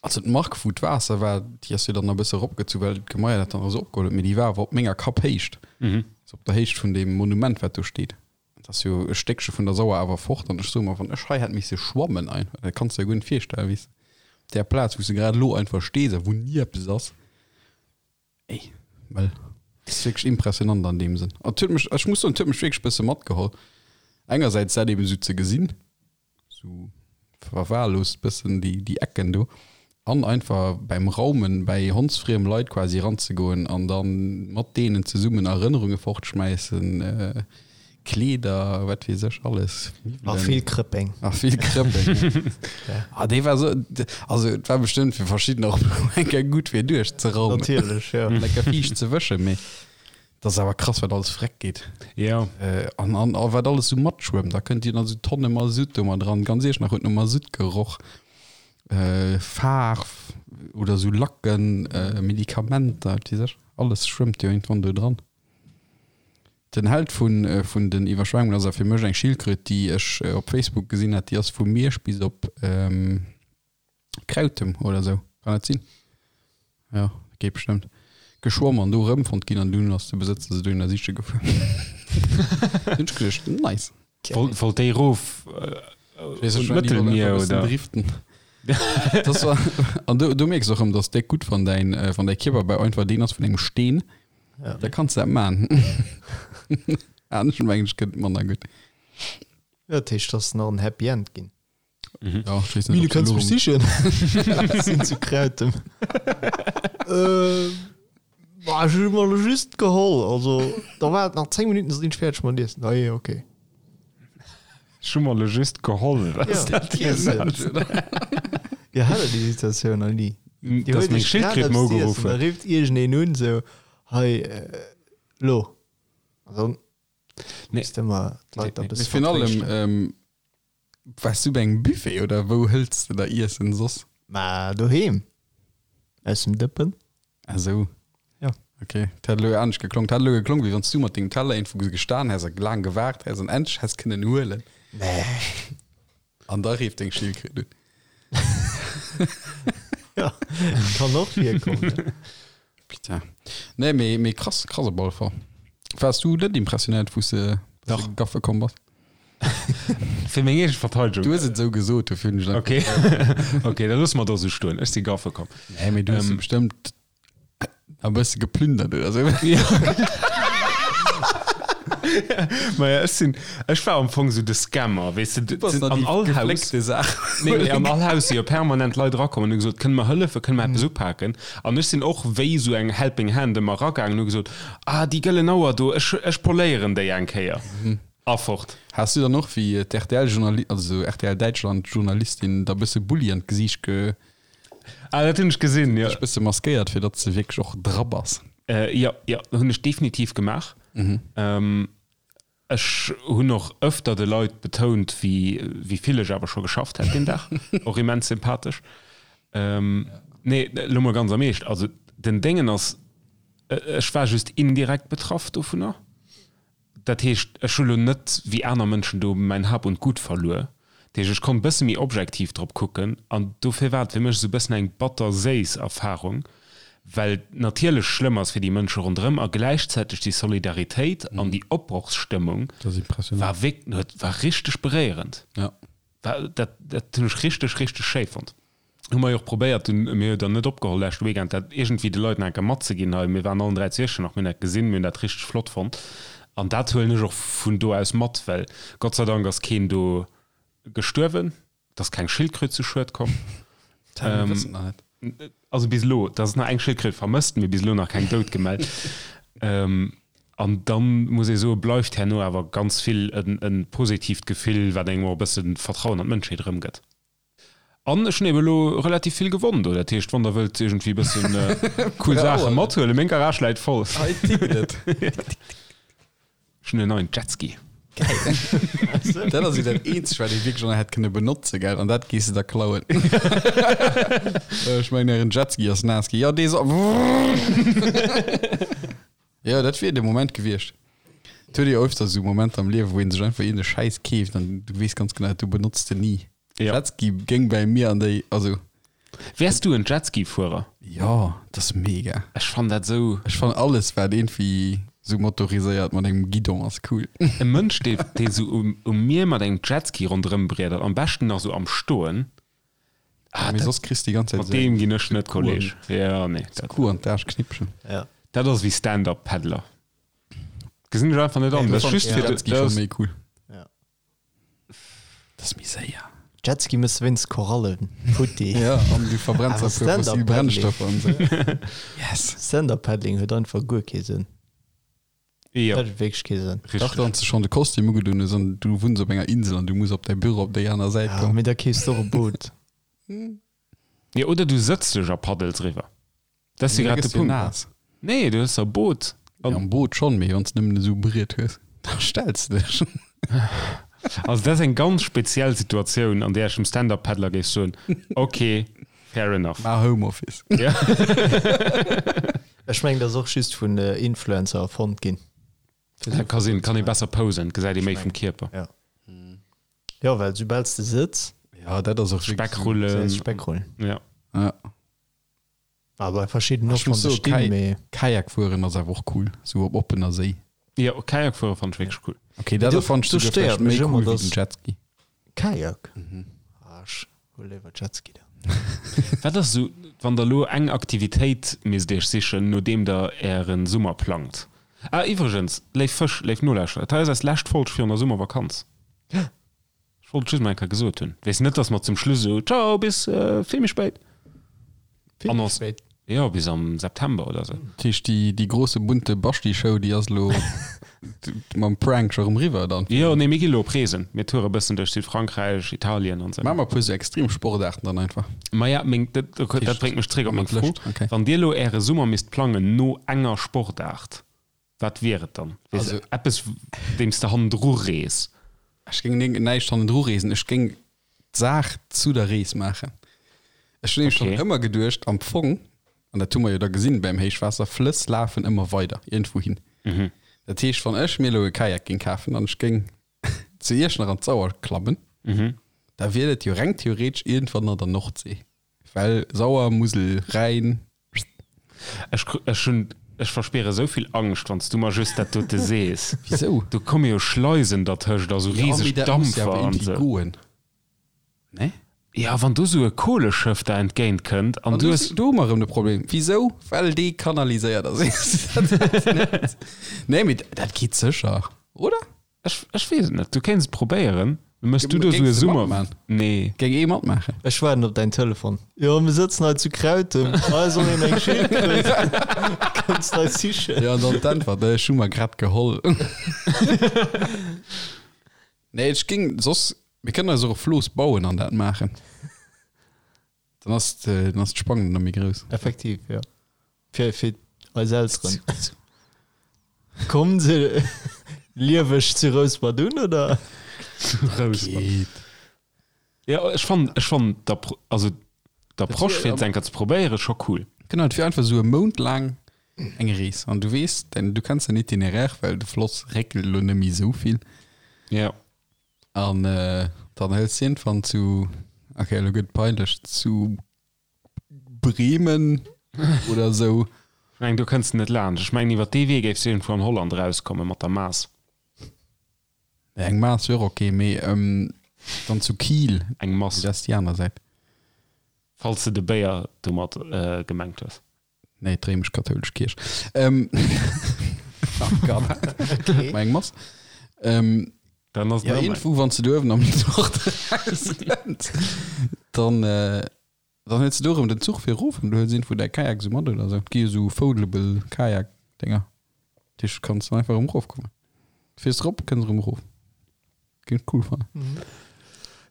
A: also d'Mark, wou d'Waasser war, déi ass jo dann e bësse eropgezu, well d'Gemaier dat dann esou opgeholl huet, mee déi war awer op menger Kapphéicht, also op der Héicht vun deem Monument, wat do steet. Et ass jo e Stéckche vun der Sauer awer fort an ech soe mer, wann ech hei hätt misse schwammen einfach, dat kanns de der guer net virstellen, weess de, op där Plaz, wou s de grad elo einfach stees a wou ni eppes ass. Ey, well et ass wierklech impressionant an deem Sënn. An et huet mech, ech muss soen, et huet mech wierklech e bësse matgeholl, engersäits dat eben esou ze gesinn, sou verwahrlost bëssen déi déi Ecken do an einfach beim Raumen bäi hondsfriem Leit quasi ranzegoen an dann mat deenen zesummen Erënnerunge fortschmäissen, Kleeder, wat weess ech alles,
B: A vill Krëppeng.
A: A vill Krëppeng. Ah dee war sou, also et war bestëmmt fir verschiddener och eng Kéier gutt fir duerchzeraumen.
B: Natierlech, jo.
A: An eng Kéier fiicht ze wëschen, mee. Dat ass awer krass, wat alles vreck geet.
C: Jo.
A: An, an, a wat alles sou matschwëmmt. Da kënnt jo dann sou Tonne Masutt do mat dran. Ganz Iechternach huet no Masutt geroch. Faarf oder sou Lacken, Medikamenter, wat weess ech. Alles schwëmmt jo iergendwann do dran. Den Held vun, vun den Iwwerschwemmungen ass awer fir mech eng Schildkröt, déi ech op Facebook gesinn hat. Déi ass vu Miersch bis op. Krautem oder sou, kann dat sinn? Jo, dat geet bestëmmt. Geschwomm an do erëmfonnt ginn an dunn ass de Besëtzer se dohinner siche gefuer. Hunn ech geduecht, nice.
C: Wollt, wollt déi erof
A: äh, un d'Mëttelmier oder? Driften. Das war, an do, do mierks och erëm, dass déck gutt wann däin, äh, wann däi Kierperbau einfach deen ass vun engem Steen,
B: Ja.
A: da kanns de dat man. Anescht mengen ech gëtt manner gutt.
B: Ja, dat heescht, dass nach en Happy End ginn.
A: Mhm. Ja, ich weiß
B: nicht,
A: du
B: ob kannst
A: sie
B: mich sichen. Sinn zu Krautem. äh, boah, ich hun mal just geholl. Also, da war et nach 10 Minuten, sinn ich fertig mat Iessen. Ah, je, okay.
C: Ech hu mer lo just geholl. Was
B: Ja.
C: dat dir
B: Iessen.
C: sagt.
B: Ja, hat der déi Situatioun nach nie? Dir
C: Dass
B: huet
C: meng
B: iech grad
C: Schildkröt
B: eppes
C: mer
B: z'iessen,
C: ugeruff
B: Da
C: huet.
B: rifft iergendeen un, sou, hei, äh, lo. An dann
C: Nee.
B: misst ëmmer d'Leit da
C: Nee, nee.
B: bësse
A: Mee virun allem,
B: vertréischten.
A: ähm, Waars du bei engem Buffet oder wou hëlls de der Iessen soss?
B: Ma doheem. Aus dem Dëppen.
A: Ah sou.
B: Ja.
A: Ok, et hätt elo anescht geklongen. Et hätt elo geklongen, wéi wann s du mat dengem Teller iergendwou gestan häss a laang gewaart häss an endlech häss kënnen huelen.
B: Nee.
A: An da rifft deng Schildkröt un.
B: Ja, kann och virkommen.
A: Putain. Nee, mee, mee krass, krass op alle Fall. Waars du net impressionéiert, wou s de
C: Dach.
A: gaffe komm bass?
C: Fir meng eege Verteidegung.
A: Du hues et esou gesot, dofir hunn ech
C: Ok, ok, da loosse mer dat esou stoen. Ech si gaffe komm.
A: Nee, mee du hues
C: Ähm.
A: bestëmmt e bësse geplündert oder sou.
C: Maja, ech sinn, ech war am Fong esou de Scammer, weess de,
A: Du bass
C: an
A: nach déi
C: all Haus.
A: gefléckte Saach.
C: Nee, mee an all Haus si jo permanent Leit erakomm an hu gesot, kënne mer hëllefen, kënne mer eppes upaken? An ech sinn och wéi esou eng helping hand ëmmer eragaangen an hu gesot, ah, déi gëllen Auer do, ech, ech poléieren déi eng Kéier. A fort.
A: Has du dann och wéi d'RTL-Journali-, also RTL-Däitschland-Journalistin der bësse Bulli an d'Gesiicht ge.
C: Ah, dat hunn ech gesinn, jo.
A: Dech bësse maskéiert, fir datt s de wierklech och dra bass?
C: Jo, jo, hunn ech definitiv gemaach. Ech hunn och ëfter de Leit betount, wéi wéi vill ech awer scho geschafft hätt deen Dag. Och immens sympathesch. Nee, elo mol ganz am Eescht, also den Déngen ass, ech war just indirekt betraff dovunner. Dat heescht, ech hu lo net wéi aner Mënschen do mäin Hab und Gut verluer. Dat heescht, ech konnt e bësse méi objektiv drop kucken an dofir war et fir mech esou e bëssen eng batter-séiss Erfarung, well et natierlech schlëmm ass fir déi Mënsche ronderëm a gläichzäiteg déi Solidaritéit an déi Opbrochsstëmmung war wierk war richteg beréierend. War dat dat hunn ech richteg, richteg schéi fonnt. Hu mer jo och probéiert dunn, mir hu jo dann net opgeholl leschte Weekend, dat iergendwéi de Leit nach eng Kéier matzeginn hei. Mir waren allen 3 zu Iechternach, mir hunn dat gesinn, mir hunn dat richteg flott fonnt an dat huelen ech och vun do aus mat, well Gott sei Dank ass keen do gestuerwen, et ass keng Schildkröt zu Schued komm.
A: Dat mir wëssen et nach net.
C: Also bis elo, et ass nach eng Schildkröt vermësst, mee bis elo nach keng dout gemellt. An dann muss ee soen, bleift herno awer ganz vill e positiivt Gefill, wat engem och e bësse Vertrauen an d'Mënschheet erëmgëtt. An ech hunn eben elo relativ vill gewonn do. Dat heescht, wann der wëllt iergendwéi e bëssen cool Saache mathuelen, meng Garage läit voll.
A: Hei tickt et.
C: Ech hunn en neien Jetski.
A: Geil. Dat ass jo dat eenzegt, wat ee wierklech nach hätt kënne benotzen, gell? An dat gees de da klauen. Ech mengen, ären Jetski ass naass ginn. Jo, dee soll. Jo, dat wier de Moment gewiescht. Et huet ee jo öfter esou Momenter am Liewen, wou ee sech einfach iergend e Schäiss keeft an du weess ganz genau, du benotz de ni.
C: Ja.
A: Jetski géing bäi mir an déi, also.
C: Wäers du en Jetski-Fuerer?
A: Jo, dat ass mega.
C: Ech fannen dat esou.
A: Ech fannen alles wat iergendwéi sou motoriséiert mat engem Guidon ass cool.
C: E Mënsch dee dee sou um um Mier mat engem Jetski ronderëm briedert, am beschten nach sou am Stoen. Ah,
A: Mee
C: dat,
A: soss kriss de déi ganz Zäit
C: mat
A: esou
C: deem
A: eng
C: ginn ech net
A: Kuh an
C: Kolleg. Ja, nee, dat.
A: Kuh an d'Aarschknippchen.
B: Ja.
C: Dat ass wéi Stand-up-Paddler. Gesinn ech einfach net an.
B: Nee,
C: Dat ass
B: fand-
C: just
B: ja.
C: fir de,
A: Jetski
C: dat
A: schon
C: ass,
A: méi cool.
B: Ja.
A: Dat ass méi séier.
B: Jetski mëss wéinst Korallen futti.
A: Ja, an du verbrenns
B: Awer
A: e puer fossil
B: Stand-up-Paddling.
A: Brennstoffer an esou. Yes.
B: Stand-up-Paddling huet einfach guer kee Sënn.
C: Jo,
B: Dat huet wierklech kee Sënn.
A: Dach,
C: richteg.
A: wann s de schonn de Kostüm ugedunn hues an du wunns op enger Insel an du muss op däi Büro op déi aner Säit
B: Ja,
A: kommen.
B: mee da keefs de och e Boot.
C: Jo, oder du sëtz dech a paddels riwwer. Dat ass jo
A: Da
C: grad de
A: gëss du
C: Punkt.
A: naass.
C: Nee, du hues e Boot.
A: Ja, am Boot schonn, mee wann s de nëmmen esou Briet hues, da stells de dech.
C: Also dat ass eng ganz speziell Situatioun, an där ech dem Stand-Up-Paddler géif soen, ok, fair enough.
A: Maach Homeoffice.
C: Ja.
B: Ech mengen, dat ass och just vun Influencer erfonnt ginn.
C: Dat ka sinn, kann ee besser posen, gesäit ee méi vum Kierper.
B: Ja. Jo, well soubal s de sëtz,
A: Ja, dat ass och wierklech esou.
C: Speckrullen.
B: Speckrullen.
C: Ja.
A: Ja.
B: Aber verschidden
A: Ech
B: och
A: muss
B: wann se
A: soen,
B: stinn,
A: Kai-
B: mee
A: Kajak fueren ass awer och cool, sou op oppener Séi.
C: Jo, Kajak fuere fannt ech wierklech cool.
A: Okay, dat
B: Do-
A: fannt ech
B: do
A: souguer
B: stéiert
A: vläicht méi
B: mech ëmmer,
A: cool wéi
B: dass-
A: den Jetski.
B: Kajak? Ah, ech hu léiwer Jetski dann.
C: Wat ass esou, wann der elo eng Aktivitéit misst iech sichen, nodeem der ären Summer plangt? Ah, iwwregens, léif Fësch, léif Nolauschterer, dat hei ass eis lescht Folg virun der Summervakanz. Ech wollt et just mol eng Kéier gesot hunn. Weess net, dass mer zum Schluss esou, Ciao, bis vill méi spéit.
B: Vill méi
C: Annonce.
B: spéit.
C: Jo, bis am September oder esou.
A: Dat heescht, déi, déi grosse bunte Basti-Show, déi ass elo mam Prank scho rëm riwwer dann?
C: Jo, nee, mir gi lo op Reesen. Mir toure bëssen duerch Südfrankräich, Italien an esou.
A: Maache mer e puer esou extrem Sportaarten dann einfach.
C: Maja, meng, dat, dat bréngt mech zréck op meng Fro.
A: Okay.
C: Wann Dir elo Äre Summer misst plangen no enger Sportaart, Wat wier et dann? Weess
A: Also-
C: eppes, deem s de hannendru rees?
A: Ech géing ning- näischt hannendru reesen, ech géing d'Saach zu der Rees maachen. Ech hunn nämlech
C: Okay.
A: schonn ëmmer geduecht, am Fong, an dat hu mer jo da gesinn beim Héichwaasser, Flëss lafen ëmmer weider iergendwou hin. Dat heescht, wann ech mir elo e Kajak géing kafen an ech géing zu Iechternach an d'Sauer klammen, da wier dat jo reng theoretesch iergendwann an der Nordsee. Well Sauer, Musel, Rhäin.
C: Ech, ech hunn, ech verspiere esou vill Angscht, wann s du mer just dat dote sees.
A: Wisou?
C: Do komme jo Schleisen dertëscht a sou riseg Dampfer an
A: sou.
C: sou.
A: Goen. Ne?
C: Ja, wann do sou e Koleschëff der entgéint kënnt an
A: An
C: du
A: du
C: hues.
A: do hu mer erëm de Problem. Wisou? Well dee kanaliséiert ass. Nee, mee dat geet sécher, oder?
C: Ech, ech weess et net. Du kéints et probéieren. Mëss du do
A: Géings
C: sou e
A: de
C: Summer.
A: matmachen?
C: Nee.
A: Géing ee matmaachen?
B: Ech waarden op däin Telefon. Jo, mir sëtzen hei zu Krautem. Hei soll een eng Schildkröt. Kënns de eis sichen?
A: Ja, an dann d'Äntwert, ech hu mer grad geholl. Nee, ech géing soss, mir kënnen eis och e Flooss bauen an dat maachen. Dann ass dann ass d'Spannung nach méi grouss.
B: Effektiv, jo. Fir, fir eis Elteren. Kommen se lieweg zu Rouspert un, oder?
C: Rouspert.
A: Geet.
C: Ja, ech fannen, ech fannen d'Appro-, also d'Approche fir et eng Kéier ze probéieren scho cool.
A: Genau, et wier einfach esou e Mount laang eng Rees an du weess, du kenns den Itinéraire, well de Floss réckelt elo net méi esou vill.
C: Ja.
A: An dann hëls de iergendwann zu, okay, elo gëtt et peinlech, zu Bremen oder esou.
C: Ech mengen, do kënns de net laanscht. Ech mengen, iwwer dee Wee géifs de iergendwou an Holland erauskomme mat der Maas.
A: Eng Maas wier och okay, mee dann zu Kiel.
C: Eng Mass.
A: Dat ass déi aner Säit.
C: Falls de de Béier domat gemengt hues.
A: Nee, d'réimesch-kathoulesch Kierch. Ähm, oh Gott.
B: Okay.
A: Meng Mass. Ähm,
C: Dann ass
A: ja, irgendwo, wann du uewen am Nord rauskënns, dann, äh, dann hues du do erëm den Zuch fir erof an du hues irgendwo däi Kajak sou mat oder sou. Et gi jo sou foldable Kajak-Dinger. Dat heescht, du kanns dann einfach erëm erofkommen. Du fiers erop, kënns erëm erof. Géing ech cool fannen.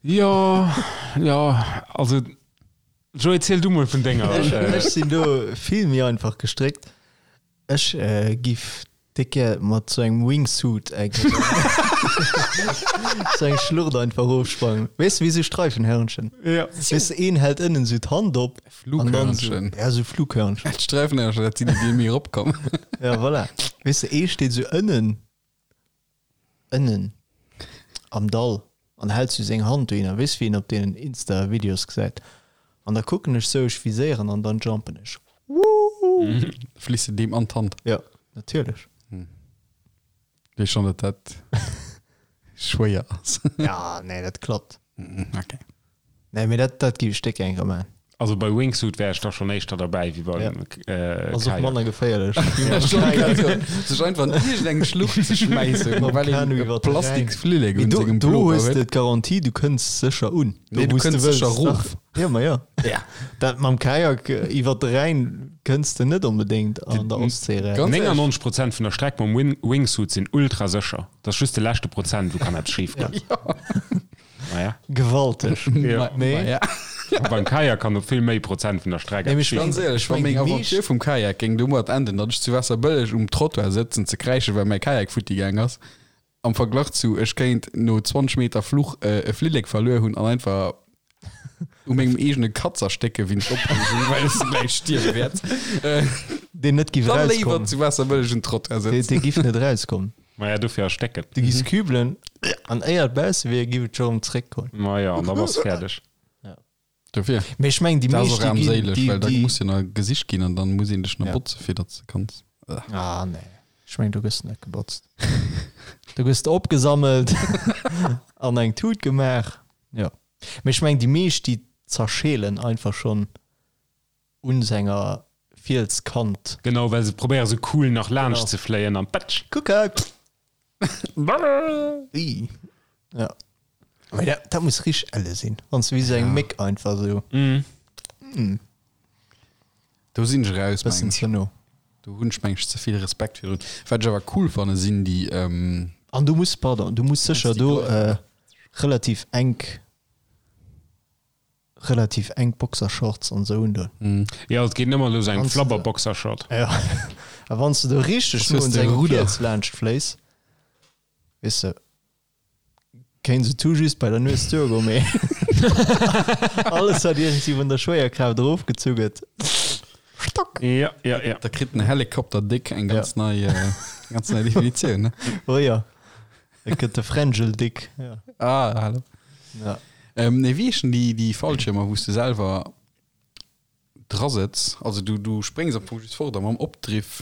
C: Jo, jo, also Joé, ziel du mol vun denger.
B: Ech sinn do vill méi einfach gestréckt. Ech giff. Décke mat sou engem Wingsuit eng sou eng Schlucht einfach rofsprangen. Weess de wéi sou Streifenhörnchen?
C: Ja.
B: Weess de een hält ënnen sou d'Hand op an dann sou,
A: Flughörnchen.
B: ja sou Flughörnchen.
A: D'Sträifenhörnchen, dat sinn déi, déi méi eropkommen.
B: Ja voilà. Weess de ee steet sou ënnen, ënnen am Dall an hält sou seng Hand dohinner, weess wéi een op deenen Insta Videos gesäit. An da kucken ech sou, ech viséieren an dann jumpen ech. Woohoo!
A: Fliss de deem an d'Hand?
B: Jo, natierlech.
A: Weess schonn, datt dat schwéier ass.
B: Ja, nee, dat klappt.
A: Okay.
B: Nee, mee dat, dat géif ech déck gär maachen.
C: Also bei Wingsuit wär ech da schon éischter derbäi wéi beim
B: Ja. Ass och
C: Kajak.
B: manner geféierlech.
A: Sech einfach an iergendeng Schlucht ze schmäissen,
B: Mam
A: well een
B: Kanu
A: e
B: iwwer de Rhäin.
A: Plastiksflillek
B: Mee
A: un
B: do,
A: sengem
B: do
A: Pullover
B: hues de
A: huet.
B: d'Garantie, du kënns sécher un. Do,
A: Nee, du
B: wou s de
A: kënns
B: wëlls.
A: sécher erof.
B: Dach. Ja, ma ja.
A: Ja.
B: Dat mam Kajak iwwer de Rhäin kënns de net onbedéngt an der Ostsee eraus.
A: Ganz ehrlech.
C: 99 Prozent vun der Streck mam Wing Wingsuit sinn ultra sécher. Dat ass just de leschte Prozent, wou kann eppes schif goen. Naja.
B: Gewalteg.
C: Ja.
B: Nee.
A: Ja.
C: Beim Kajak kann op vill méi Prozent vun der Streck
B: Nee, mee
C: eppes
B: ech
C: schief
A: Ganz
B: mengen-
A: éierlech,
B: ech
A: wa
B: mengen,
A: meng
B: déi
A: Aventure
B: meescht-
A: vum Kajak géing domat enden, datt ech zu Waasserbëlleg um Trottoir sëtzen ze kräischen, well mäi Kajak futti gaang ass, am Verglach zu ech kéint no 20 Meter Fluch e Flillek verluer hunn an einfach u mengem eegene Katz erstécke wéinst Opreegung, well ech gläich stierwe wäert,
B: Deen net giff
A: dann léiwer
B: erauskommen.
A: zu Waasserbëlleg um Trottoir
B: Dee,
A: sëtzen.
B: dee giff net erauskommen.
C: Maja, dofir erstécken.
B: Du giss kübelen an éier et bausse wier, giff et scho rëm zréckkommen.
C: Maja, an da bass de fäerdeg.
A: Dofir.
B: Mee ech mengen, déi
A: Dat ass
B: meescht,
A: och
B: déi ginn,
A: armséileg,
B: déi,
A: well da
B: déi.
A: muss jo nach gesicht ginn an dann muss een dech nach
B: Ja.
A: botze fir datt s de kanns.
B: Ah, nee. Ech mengen, do gëss de net gebotzt. Do gëss de opgesammelt an eng Tut gemaach. Jo. Mee ech mengen, déi meescht, déi zerscheelen einfach schonn un senger Fielskant.
C: Genau, well se probéiere sou cool nach laanscht
B: Genau.
C: ze fléien an patsch.
B: Kuck hei! Ii. Ja. Mee dat, dat muss richteg elle sinn, wann s de wéi sou eng Méck einfach sou
A: Do sinn ech raus,
B: bëssen
A: mengen ech.
B: ze no.
A: Do hunn ech, mengen ech, ze vill Respekt virdrun. Wat ech awer cool fanne sinn déi,
B: An du muss, pardon, du muss sécher
A: déi
B: do
A: Glei-
B: relativ enk relativ enk Boxershorts an sou undoen.
C: Jo, et geet nëmmer elo sou eng
B: Wanns de-
C: Flabber-Boxershort.
B: Ja. A wann s de do richteg
A: Was
B: no
A: hues
B: un
A: de,
B: sengem
A: Rudder?
B: Fiels laanscht fléis, weess de, kéint se tout juste bei der Nues duergoen, mee alles wat iergendwéi vun der Schwéierkraaft erofgezu gëtt, Stock!
C: Ja, ja, ja.
A: Da kritt den Helikopter Dick eng ganz nei, äh, ganz nei Definitioun, ne?
B: Oh ja, et gëtt de Frangel Dick. Ja.
A: Ah, hallo.
B: Ja.
A: Ähm, nee, wéi heeschen déi, déi Fallschirmer, wou s de selwer dra sëtz? Also du, du spréngs am Fong just fort a mam Opdriff.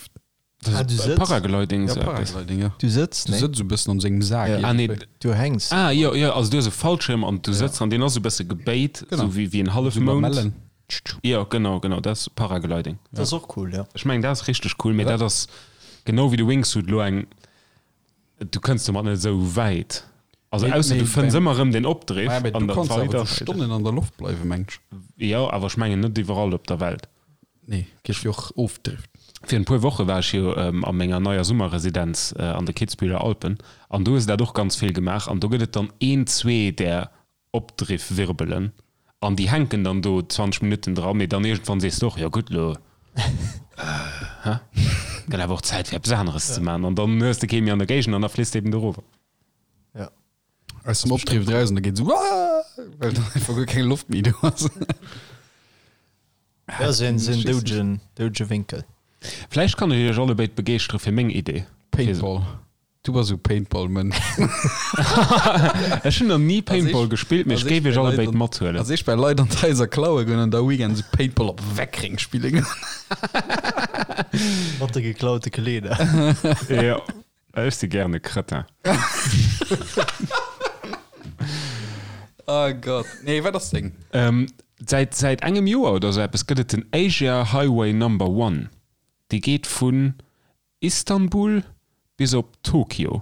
B: Ah, du sëtz?
C: Paragliding,
A: Ja,
C: sou eppes.
A: Paragliding, ja.
B: Du sëtz?
A: Du
B: Nee.
A: sëtz esou e bëssen an sengem Sak.
B: Ja.
C: Ah, nee.
A: iergendwéi.
B: Du hänks.
C: Ah, jo, jo, also du hues e Fallschirm an du sëtz an deen ass esou e bësse gebéit,
A: Genau.
C: sou wéi, wéi en
A: Sou
C: Hallefmound.
A: Lamellen.
C: Jo, genau, genau, dat ass Paragliding.
B: Dat ass och cool, ja.
C: Ech mengen, dat ass richteg cool, mee dat ass genau wéi de Wingsuit lo eng, du kënns domat net esou wäit. Also
A: Nee,
C: ausser
A: nee,
C: du fënns
A: beim-
C: ëmmer erëm den Opdriff
A: Ah, mee
C: an
A: du
C: der
A: kanns awer
C: weider.
A: zu Stonnen an der Loft bleiwen, meng ech.
C: Jo, awer ech mengen net iwwerall op der Welt.
A: Nee, gëtt jo och Ofdrift.
C: Fir en puer Woche war ech jo a menger neier Summerresidenz an de Kitzbüheler Alpen an do hu se dat och ganz vill gemaach an do gëtt et dann een, zwee där Opdriffwirbelen an déi hänken dann do 20 Minutten dran, mee dann iergendwann sees de och, jo gutt, lo hä, gëtt awer och Zäit fir eppes aneres ze maachen an dann hues de kee méi an der Géigend an da fliss de eben dorower.
B: Ja.
A: Aus dem Opdriff draussen, da geet esou Waaah, well dann einfach guer keng Loft méi do ass.
B: Ja, sou en, sou en doudegen, doudege Wénkel.
C: Vläicht kann ech iech allebéid begeeschtere fir meng Idee.
A: Paintball. Du bass esou Paintball-Mënsch.
C: Ech hunn nach ni Paintball gespillt, mee ech géif iech allebéid mathuelen.
A: Also ech bei Leit an d'Haiser klaue goen an da Weekend esou Paintball op Weckreng spille goen.
B: Mat de geklaute Kleeder.
C: Jo, ech si gären e Cretin.
A: Oh Gott. Nee, wat ass deng?
C: Säit säit engem Joer oder sou eppes gëtt et den Asia Highway Number One. Dee geet vun Istanbul bis op Tokio.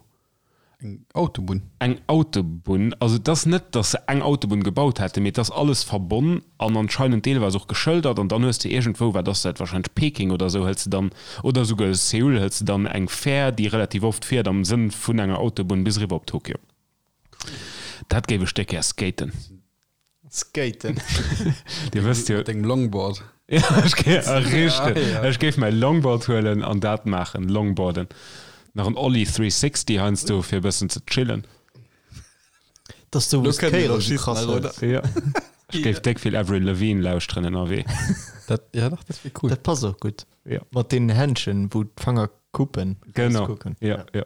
A: Eng Autobunn?
C: Eng Autobunn. Also et ass net, datt se eng Autobunn gebaut hätten, mee et ass alles verbonn an anscheinend deelweis och geschëldert. An dann hues de iergendwou, wat ass dat, wahrscheinlech Peking oder esou, hëls de dann, oder esouguer Seoul, hëls de dann eng Fähr, déi relativ oft fiert am Sënn vun enger Autobunn bis eriwwer op Tokio. Dat géif ech déck gär skaten.
B: Skaten.
C: Dir wësst jo.
A: Mat dengem Longboard.
C: Ja, ech géif, ah, richteg.
A: Ja, ja.
C: Ech géif mäi Longboard huelen an dat maachen, Longboarden. Nach en Ollie 360 heiansdo fir e bëssen ze chillen.
B: Dass du
A: Lo
B: wous
A: kënnt
B: d'Kéier
A: een
B: esou
A: schiessen
B: krass
A: nach, oder?
B: hues.
C: Ja. Ech géif déck vill Avril Lavigne lauschteren ënnerwee.
A: Dat, ja dach, dat wier cool.
B: Dat passt och gutt.
C: Ja.
B: Mat deenen Händschen, wou d'Fanger kuppen.
C: Genau.
B: Rauskucken.
C: Ja, ja.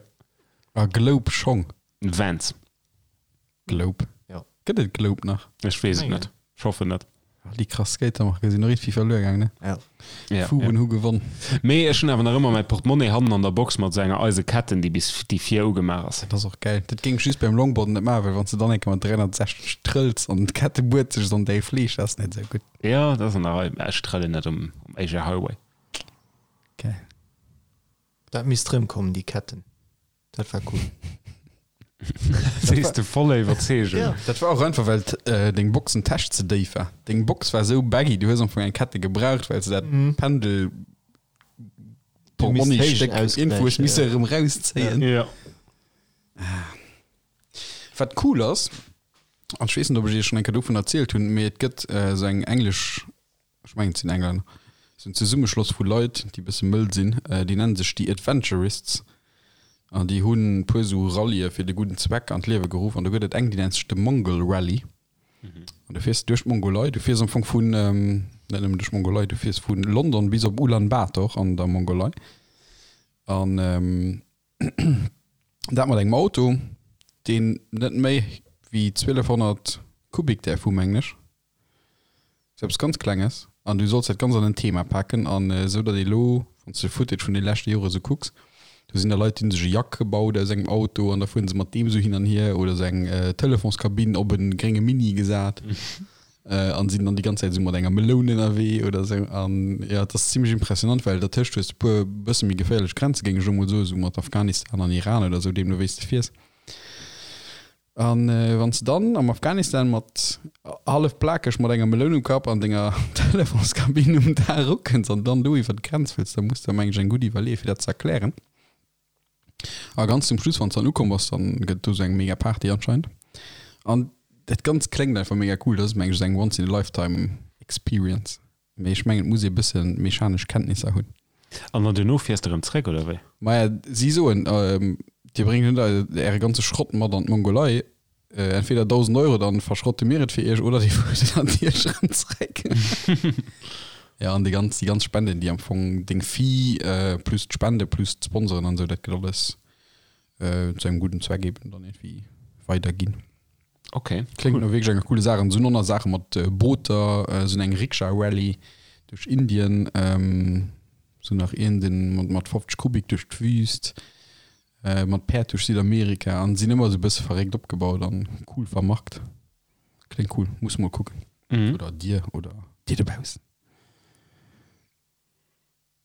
A: A Globe Schong.
C: Vans.
A: Globe.
B: Ja.
A: Gëtt et Globe nach?
C: Ech weess et
B: Mengen.
C: net. Ech hoffen net.
A: Ah, déi krass Skatermarke sinn och iergendwéi verluer gaang, ne?
B: Ja.
C: Ja,
A: Fuben
C: ja.
A: hu gewonn.
C: Mee ech hunn awer nach ëmmer mäi Portemonnaie hannen an der Box mat esou enger eise Ketten, déi bis déi vir ugemaach ass.
A: Dat ass och gäil. Dat géing ech just beim Longboarden net maachen, well wann s de dann eng Kéier mat 360 trëlls an d'Kette buert sech an däi Fleesch, dat ass net esou gutt.
C: Ja, dat ass an der Rei. Mä ech trëllen net um, um Asia Highway.
A: Geil.
B: Dat misst rëmkommen, déi Ketten. Dat war cool.
C: Sees de voller Iwwerzeegung.
B: Ja.
A: Dat war och einfach, well deng Boxentäsch ze déif war. Deng Box war esou baggy, du hues am Fong eng Kette gebraucht, well s de dat Pendel Portmonniestéck iergendwou hues misse erëm rauszéien.
C: Ja.
A: Wat cool ass, an ech weess net, ob ech iech schonn eng Kéier dovun erzielt hunn, mee et gëtt esou eng englesch ech mengen et sinn Englänner, sou en Zesummeschloss vu Leit, déi e bësse mëll sinn, déi nennen sech déi Adventurists an déi hunn e puer sou Rallye fir de gudden Zweck an d'Liewe geruff an do gëtt et eng, déi nennt sech de Mongol Rally an du fiers duerch d'Mongolei, du fiers am Fong vun, net nëmmen duerch d'Mongolei, du fiers vu London bis op Ulan Bator an der Mongolei an dat mat engem Auto, deen net méi wéi 1200 Kubik däerf hu mengen ech. Sou eppes ganz Klenges an du solls dat ganz an en Thema paken an esou datt ee lo, wann s de Footage vun de leschte Jore sou kucks, do sinn da Leit déi hunn sech e Jack gebaut aus engem Auto an da fueren se mat deem sou hin an hier oder sou eng Telefonskabinn op e grénge Mini gesat an sinn dann déi ganz Zäit esou mat enger Meloun ënnerwee oder sou an jo et ass zimlech impressionant, well dertëscht hues de puer bësse méi geféierlech Grenze géing ech elo mol soen, sou mat Afghanistan an Iran oder sou, deemno wéi s de fiers. An wann s de dann am Afghanistan mat hallef plakeg mat enger Meloun um Kapp an denger Telefonskabinn um Daach ukënns an dann do iwwer d'Grenz wëlls, da muss de mengen ech eng gutt iwwerleeë fir dat ze erklären. A ganz zum Schluss, wann s dann ukomm bass, dann gëtt et do sou eng mega Party anscheinend. An dat Ganzt kléngt einfach mega cool. Dat ass mengen ech sou eng once in a lifetime experience. Mee ech mengen et muss ee bësse mechanesch Kenntnisser hunn.
C: An dann duerno fiers de erëm zréck, oder wéi?
A: Maja, si soen, Dir bréngt net äre ganze Schrott mat an d'Mongolei. Entweder 1.000 Euro, dann verschrotte mir et fir iech, oder dir fuert et natierlech erëm zréck. Jo, an déi ganz, déi ganz Spenden, déi am Fong deng Fee plus d'Spende plus d'Sponsoren an esou, dat gëtt alles zu engem gudden Zweck eben dann iergendwéi weiderginn.
C: Okay.
A: Kléngt no wierklech enger coole Saach. An sinn och nach Saache mat Booter, sinn eng Rikscha-Rallye duerch Indien, sinn nach een den mat mat 50 Kubik duerch d'Wüst, mat Päerd duerch Südamerika an sinn ëmmer esou bësse verréckt opgebaut an cool vermarkt. Kléngt cool, muss mol kucken.
C: Mhm.
A: Oder dir oder dir dobaussen.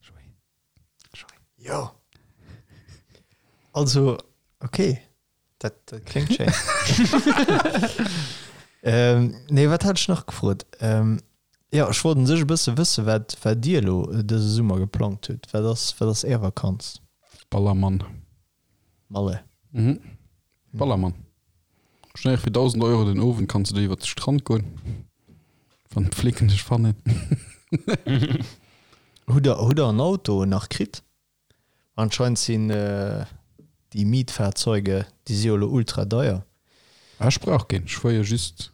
A: Joé. Joé.
B: Jo. Also, okay. Dat, dat kléngt schéin. ähm, nee, wat hat ech nach gefrot? Ähm, ja, ech wollt un sech e bësse wësse, wat, wat Dir elo dëse Summer geplangt hutt. Wat ass, wat ass Är Vakanz?
A: Ballermann.
B: Malle.
A: Mhm. Ballermann. Schnell fir 1000 Euro den Owend kanns du do iwwer de Strand goen, wann d'Flicken dech fannen.
B: Hutt der, hutt der en Auto nach kritt? Anscheinend sinn déi Mietfahrzeuge, déi si jo elo ultra deier.
A: Ech brauch keen, ech fuer jo just,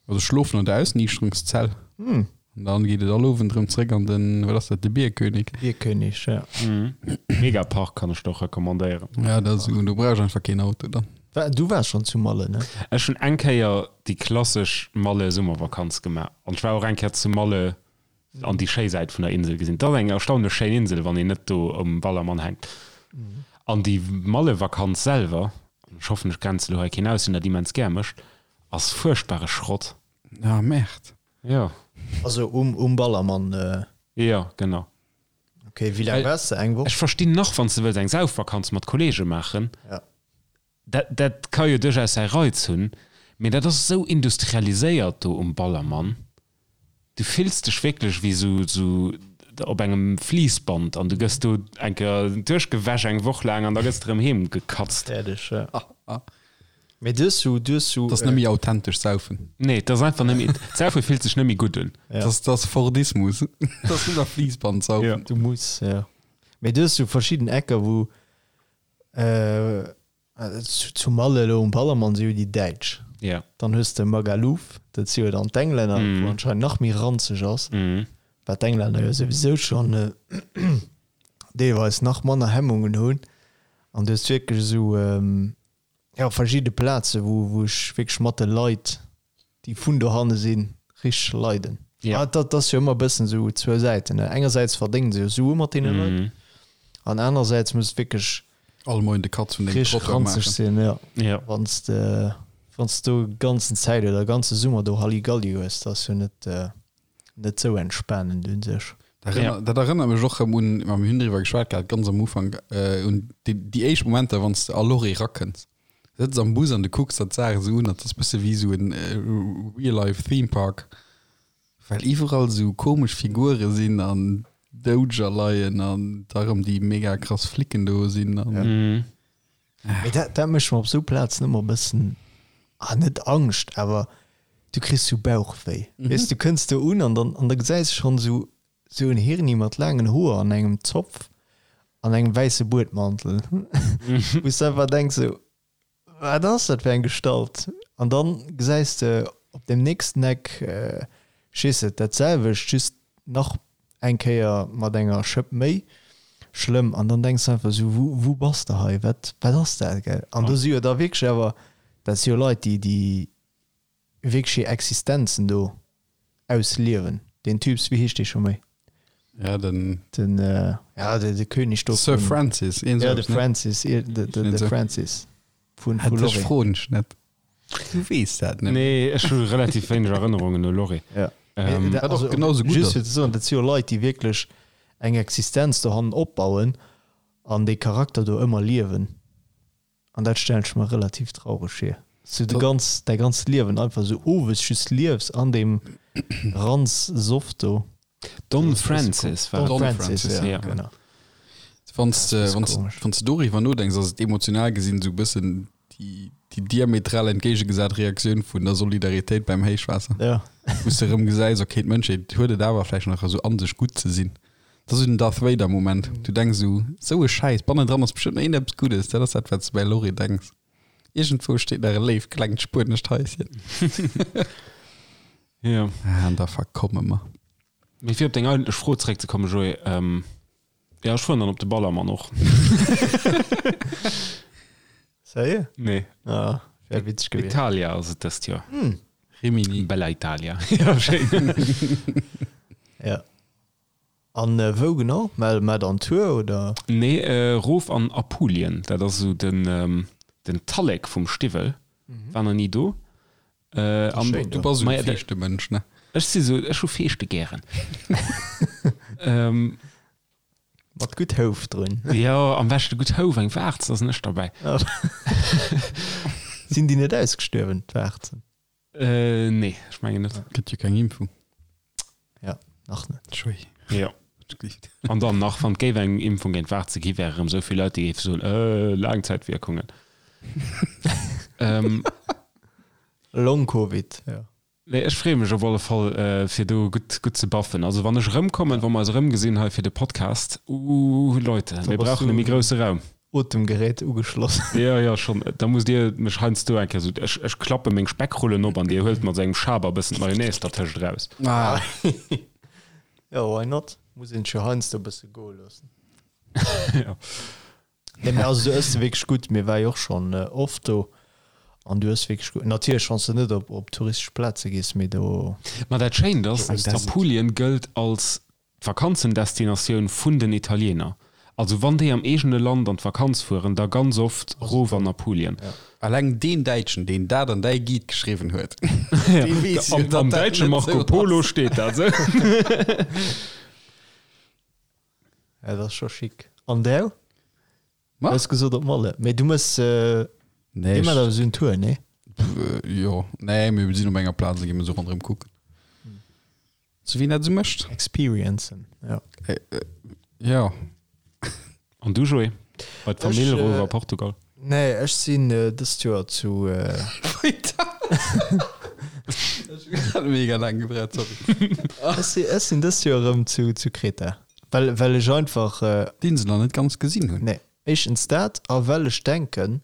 A: also ech schlofen an der Ausniichterungszell an dann geet et all Owend erëm zréck an den, wat ass dat, de Bierkönig.
B: Bierkönig, ja.
C: Megapark kann ech der och recommandéieren.
A: Ja, dat ass, do brauch ech einfach keen Auto dann.
B: Du waars schonn zu Malle, ne?
C: Ech hunn eng Kéier déi klassesch Malle-Summervakanz gemaach an ech war och eng Kéier zu Malle an déi schéi Säit vun der Insel gesinn. Et ass eng erstaunlech schéin Insel, wann een net do um Ballermann hänkt. An déi Mallevakanz selwer, an ech hoffen, ech grenze lo hei keen aus, deen dat immens gär mécht, ass fuerchtbare Schrott.
A: Ah, Merde.
C: Jo.
B: Also um, um Ballermann?
C: Jo, genau.
B: Ok, wéi laang waars de? Eng Woch?
C: Ech verstinn nach, wann s de wëlls eng Saufvakanz mat Kollege maachen,
B: Ja.
C: Dat, dat ka jo duerchaus säi Reiz hunn, mee dat ass esou industrialiséiert do um Ballermann. Du fills dech wierklech wéi sou, sou op engem Fliissband an du gëss do eng Kéier duerchgewäsch eng Woch laang an da gëss de erëm heem gekatzt.
B: Fäerdeg, ja. Mee du hues sou, du hues sou.
A: Dat ass net méi authentesch Saufen.
C: Nee, dat ass einfach net méi, d'Saufe fillt sech net méi gutt un.
B: Ja.
A: Dat ass, dat ass Fordismus. Dat ass net nach Fliissband-Saufen.
B: Du muss, ja. Mee du hues sou verschidden Ecker, wou. Zu Malle elo um Ballermann si jo déi Däitsch.
C: Ja.
B: Dann hues de Magaluf, dat si jo dann d'Englänner, wou anscheinend nach méi ranzeg ass, wat d'Englänner jo souwisou schonn deelweis nach manner Hemmungen hunn. An du hues wierklech esou, jo, verschidde Plaze wou wou ech wierklech mat de Leit, déi vun dohanne sinn, richteg leiden.
C: Ja.
B: Ah, dat ass jo ëmmer e bëssen esou zwou Säiten, ne? Engersäits verdéngen se jo Sue mat deene Leit an anersäits muss et wierklech
A: All Moien de Katz vun dengem
B: richteg
A: Trottoir
B: ranzeg
A: maachen.
B: sinn, jo.
C: Ja.
B: Wann s de, wann s do ganzen Zäit oder ganze Summer do Halligalli hues, dat ass jo net, net sou entspanend un sech.
A: Dat erënner, dat erënnert mech och rëm un, ma mir hunn driwwer geschwat gehat, ganz am Ufank, un déi, déi éischt Momenter, wann s de a Lorry rakënns. Du sëtz am Bus an du kucks der d'Saach esou un, dat ass bësse wéi esou en Real-Life Theme Park, well iwwerall esou komesch Figure sinn an Doudeger leien an da rëm déi mega krass Flicken do sinn an.
B: Mee dat, dat mécht mer op esou Plazen ëmmer e bëssen, ah net Angscht, awer du kriss sou Bauchwéi. Weess, du kënns do un an dann, an da gesäis de schonn esou Sou en Hirni mat laangen Hoer an engem Zopf an engem wäisse Buedmantel, wou s de einfach denks sou, wat ass dat fir eng Gestalt? An dann gesäis de op dem nächsten Eck, ech weess net, dat selwecht, just nach eng Kéier mat enger Schëpp méi schlëmm. An dann denks de einfach sou, wou, wou bass de hei? Wat, wat ass dat, gell? An do si jo da wierklech awer, dat si jo Leit, déi, déi wierklech hir Existenzen do ausliewen. Deen Typs, wéi heescht dee scho méi?
A: Ja, den.
B: Den, ja, de, de König do.
A: Sir Francis,
B: een Ja, de Francis, de, de, de Francis
A: vun, vu Lorry. Dech froen ech net. Du weess dat
C: net. Nee, ech hu relativ wéineg Erënnerungen u Lorry.
B: Ja.
C: Ähm,
A: Wat och genau sou gutt
B: Just fir ze soen, dat si jo Leit, déi wierklech eng Existenz dohannen opbauen an dee Charakter do ëmmer liewen. An dat stellen ech mer relativ traureg vir, dass du de ganz, däi ganzt Liewen einfach esou owes just liefs an deem Ranz-Soff do.
C: Don Francis war
B: Don
C: et.
B: Francis, ja,
C: ja.
B: genau.
A: Wann s de, wann s, wann s de doriwwer nodenks, ass et emotional gesinn esou e bëssen déi, déi diametral entgéigegesat Reaktioun vun der Solidaritéit beim Héichwaasser.
B: Ja.
A: Wou s de erëm gesäis, okay, d'Mënschheet huet et awer vläicht nach esou an sech, gutt ze sinn. Dat ass esou den Darth Vader Moment. Du denks esou, esou e Schäiss, bannendran ass bestëmmt nach iergendeppes Guddes. Dat ass dat, wat s de bei Lorry denks. Iergendwou steet nach e léift klengt spuenescht Haischen.
C: Jo.
A: Ah, an da verkomme mer.
C: Mee fir op deng eigentlech Fro zeréckzekommen, Joé, jo, ech fueren dann op de Ballermann och.
B: Sérieux?
C: Nee.
B: Ah, wär witzeg gewiescht.
C: Italia ass et dëst Joer.
A: Rimini.
C: Bella Italia. Jo, schéin.
B: Ja. An wou genau? Mä mä dann Tour oder?
C: Nee, rof an Apulien. Dat ass esou den den Tallek vum Stiwwel. War nach ni do. An
B: Schéin
A: Du
B: do.
A: bass esou
C: Maja,
A: e
C: dat-
A: Feeschtemënsch, ne?
C: Ech si sou, ech hu Feeschte gären.
B: Mat gutt Houf drun.
C: Jo, am beschte gutt Houf, eng Waarz, da sinn ech derbäi.
B: Sinn déi net ausgestuerwen, d'Waarzen?
C: Äh, nee, ech mengen net.
A: Gëtt jo keng Impfung.
B: Ja, nach net.
A: Schui.
C: Ja. An dann nach, wann et géif eng Impfung géint Waarze gi, wäre erëm esou vill Leit, déi géife soen, äh, Laangzäitwierkungen. ähm,
B: Long-Covid, ja.
C: Nee, ech freeë mech op alle Fall, äh, fir do gutt, gutt ze baffen. Also wann ech erëmkommen, wa mer eis erëmgesinn hei fir de Podcast, uh, Leute, mir brauchen e méi grousse Raum.
B: Otemgerät ugeschloss.
C: Jo, jo, schonn. Da musst Dir mech heiansdo eng Kéier esou, ech, ech klappe meng Speckrullen op an Dir huelt mat esou engem Schaber e bëssen d'Mayonnaise dertëscht eraus.
A: Ah.
B: Jo, why not? Muss een sech jo heiansdo e bësse goe loossen.
C: Jo.
B: Nee, mä also du ëss wierklech gutt. Mir war jo och schonn oft do an du ëss wierklech gutt. Natierlech, wann s de net op, op touristesch Plaze gees, mee do.
C: Ma dat Schéint ass, Apulien gëllt als D'Vakanzendestinatioun vun den Italiener. Also wann déi am eegene Land an d'Vakanz fueren, da ganz oft rof an Apulien.
A: Alleng deen Däitschen, deen dat an däi Guide geschriwwen huet, dee weess jo,
C: Am
A: datt dat
C: däitsche
A: net
C: Marco
A: esou
C: Polo
A: ass.
C: steet dat esou.
B: Ja, dat ass scho chic. An däu?
A: Ma?
B: Hues gesot op Malle. Mee du mëss,
A: Nee,
B: dir maacht
A: ech,
B: awer esou en Tour, nee?
A: jo, nee, mir sinn op enger Plaz a gi mir esou ronderëm kucken. Sou wéi een dat esou mécht.
B: Experiencen, ja.
A: Jo.
C: An du Joé? Bei d'Famill
B: Ech,
C: erof a Portugal?
B: Nee, ech sinn dëst Joer zu.
A: Ech hat mega laang gebraucht, sorry.
B: Ech si, ech sinn dëst Joer erëm zu, zu Kreta. Well, well ech einfach.
A: D'Insel nach net ganz gesinn hunn.
B: Nee. Éischtens dat, a well ech denken,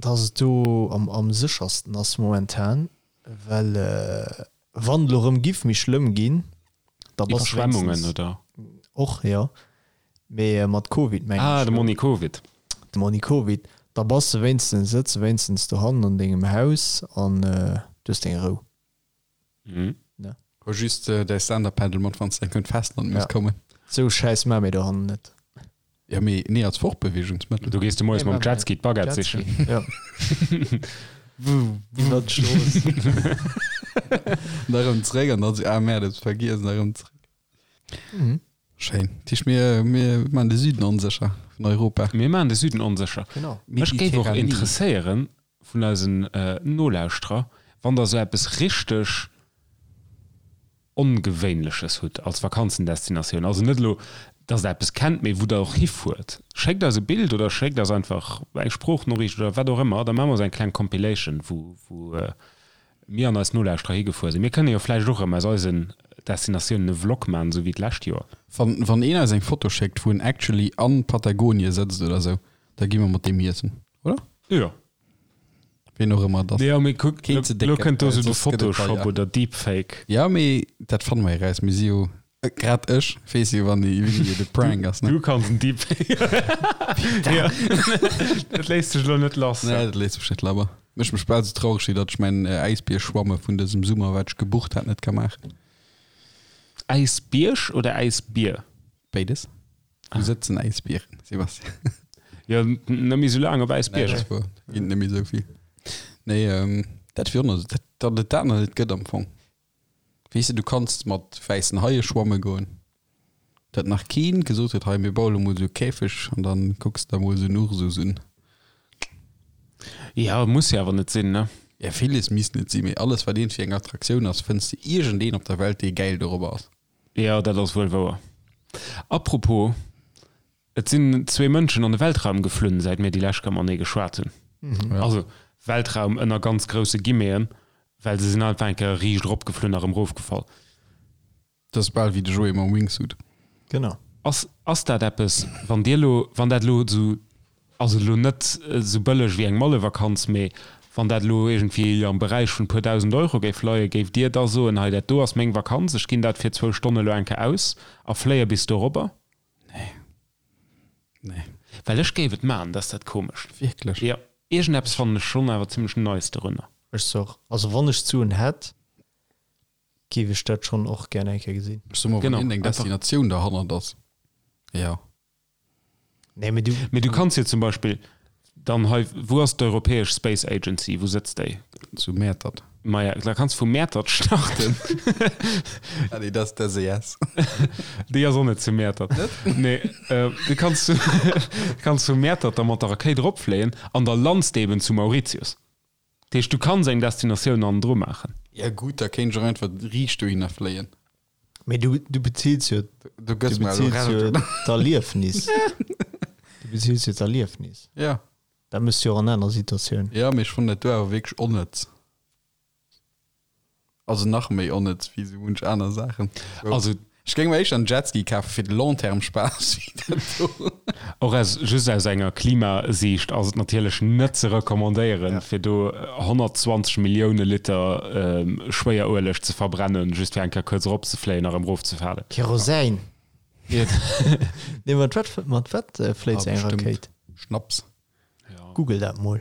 B: dass et do am, am séchersten ass momentan, well wann et elo erëm giff méi schlëmm ginn, da bass de
C: Iwwerschwemmungen,
B: wéinstens
C: oder?
B: och, jo, mee mat Covid mengen
C: Ah,
B: ech
C: de
B: elo.
C: Monni Covid.
B: De Monni Covid, da bass de wéinstens, sëtz de wéinstens dohannen an dengem Haus an du hues deng Rou.
C: Mhm.
B: Ne?
A: Huel just däi Stand-Up-Paddle mat, wann s de eng Kéier un d'Festland muss
B: Ja.
A: kommen.
B: Sou Schäiss maa mir dohannen net.
A: Ja, mee nee, als Fortbewegungsmëttel.
C: Du gees du moies
B: Nee,
C: mam
B: maa mir
C: Jetski d'Baguette
B: Jetski,
C: sichen.
B: ja. Iwwer d'Strooss.
A: An da rëm zréck an dann sou, ah merde, ech vergiess, an da rëm zréck.
B: Mhm.
A: Schéin. Dat heescht, mir, mir maan de Süden onsécher vun Europa.
C: Mir maan de Süden onsécher.
B: Genau.
C: Mech géif och
A: Mediterranee.
C: interesséieren vun eisen Nolauschterer, wann der sou eppes richteg Ongewéinleches hutt als Vakanzendestinatioun. Also net elo, dass der eppes kennt, mee wou der och hifuert. Schéckt eis e Bild oder schéckt eis einfach eng Sproochnoriicht oder wat och ëmmer, da maache mer esou eng kleng Compilation, wou, wou mir an eis Nolauschterer higefuer sinn. Mir kënne jo vläicht och erëm aus eisen Destinatiounen e Vlog maachen, esou wéi d'lescht Joer.
A: Wann, wann een eis eng Foto schéckt, wou en actually an Patagonie sëtzt oder sou, da gi mer mat deem iessen, oder?
C: Jo.
A: Ween och ëmmer et ass.
C: Jo, mee kuck,
A: Keen ze
C: elo
A: décken,
C: kënnt do
A: well
C: esou de
A: soss gëtt et
C: Photoshop
A: deier.
C: oder Deepfake.
A: Jo, mee dat fanne mer eraus. Mir si jo, grad ech weess jo, wann déi Video de Prank ass, ne?
C: Du kanns en Deepfake. Jo, dat léisst sech elo net lass.
A: Nee, dat léisst sech net labber. Mécht mech bal sou traureg, wéi datt ech mäin Äisbierschwamme vun dësem Summer, wat ech gebucht hat, net ka maachen.
C: Äisbierg oder Äisbier?
A: Béides. Wou sëtzen Äisbieren, Sebastian?
C: Jo, net méi sou laang op Äisbierger.
A: Nee, dat ass wuer. Ginn et net méi sou vill. Nee, dat wier och nach, datt et dat nach net gëtt am Fong. Weess de, du kanns mat wäissen Haie schwamme goen. Datt nach keen gesot huet, hei mir baue lo mol esou e Käfeg an dann kucks der mol esou en Ursus un.
C: Ja, muss jo awer net sinn, ne?
A: Ja, villes misst net sinn, mee alles wat iergendwéi eng Attraktioun ass, fënns de iergendeen op der Welt dee gäil dorobber ass.
C: Jo, dat ass wuel wouer. Apropos, Et sinn zwee Mënschen an de Weltraum geflunn, säit mir déi lescht Kéier matenee geschwat hunn. Also Weltraum ënner ganz grousse Guillemeten, well se sinn einfach eng Kéier riicht eropgeflunn a rëm erofgefall.
A: Dat ass bal wéi de Joé mam Wingsuit.
B: Genau.
C: Ass, ass dat eppes, wann Dir elo, wann dat elo esou, also elo net esou bëlleg wéi eng Mallevakanz, mee wann dat elo iergendwéi am Beräich vun e puer dausend Euro géif leien, géift Dir da soen, hei dat do ass meng Vakanz, ech ginn dat fir zwou Stonne elo eng Kéier aus a fléie bis dorobber?
A: Nee. Nee.
C: Well ech géif et maachen, dat ass dat Komescht.
A: Wierklech?
C: Jo. Iergendeppes fannen ech schonn awer zimmlech nice dorunner.
B: Ech soch, also wann ech d'Suen hätt, géif ech dat schonn och gär eng Kéier gesinn.
A: Ech soe mer, wann
C: Genau,
A: iergendeng
C: einfach.
A: Destinatioun derhannert ass, jo.
B: Nee, mee du.
C: Mee du kanns jo zum Beispill dann hei, wou ass d'Europäesch Space Agency, wou sëtzt déi?
A: Zu Mäertert.
C: Maja, da kanns vu Mäertert starten.
A: Ah nee, dat ass d'SES.
C: Déi ass och net zu Mäertert.
A: Net?
C: Nee, du kanns, kanns vu Mäertert da mat der Rakéit eropfléien an da lands de eben zu Mauritius. Dat heescht, du kanns eng Destinatioun hannendru maachen.
A: Ja gutt, da kéint ech och einfach riicht dohinner fléien.
B: Mee du, du bezills jo,
A: Du
B: du
A: gëss mer elo
B: bezills jo
A: Recht, oder?
B: d'Erliefnis. Du bezills jo d'Erliefnis.
A: Ja.
B: Dat méchs du jo och an aner Situatiounen.
A: Ja, mee ech fannen dat do awer wierklech onnëtz. Also nach méi onnëtz wéi sou munch aner Saachen.
C: Also
A: Ech géing mer éischter en Jetski kafe fir de long terme Spaass wéi dat do.
C: Och aus, just aus enger Klimasiicht ass et natierlech net ze recommandéieren, fir do 120 Millioune Liter Schwéierueleg ze verbrennen, just fir eng Kéier kuerz eropzefléien a rëm erofzefalen.
B: Kerosin! Nee, mat wat, mat wat fléit
A: Ah,
B: sou eng
A: bestimmt
B: Rakéit?
A: Schnaps.
B: Google dat mol.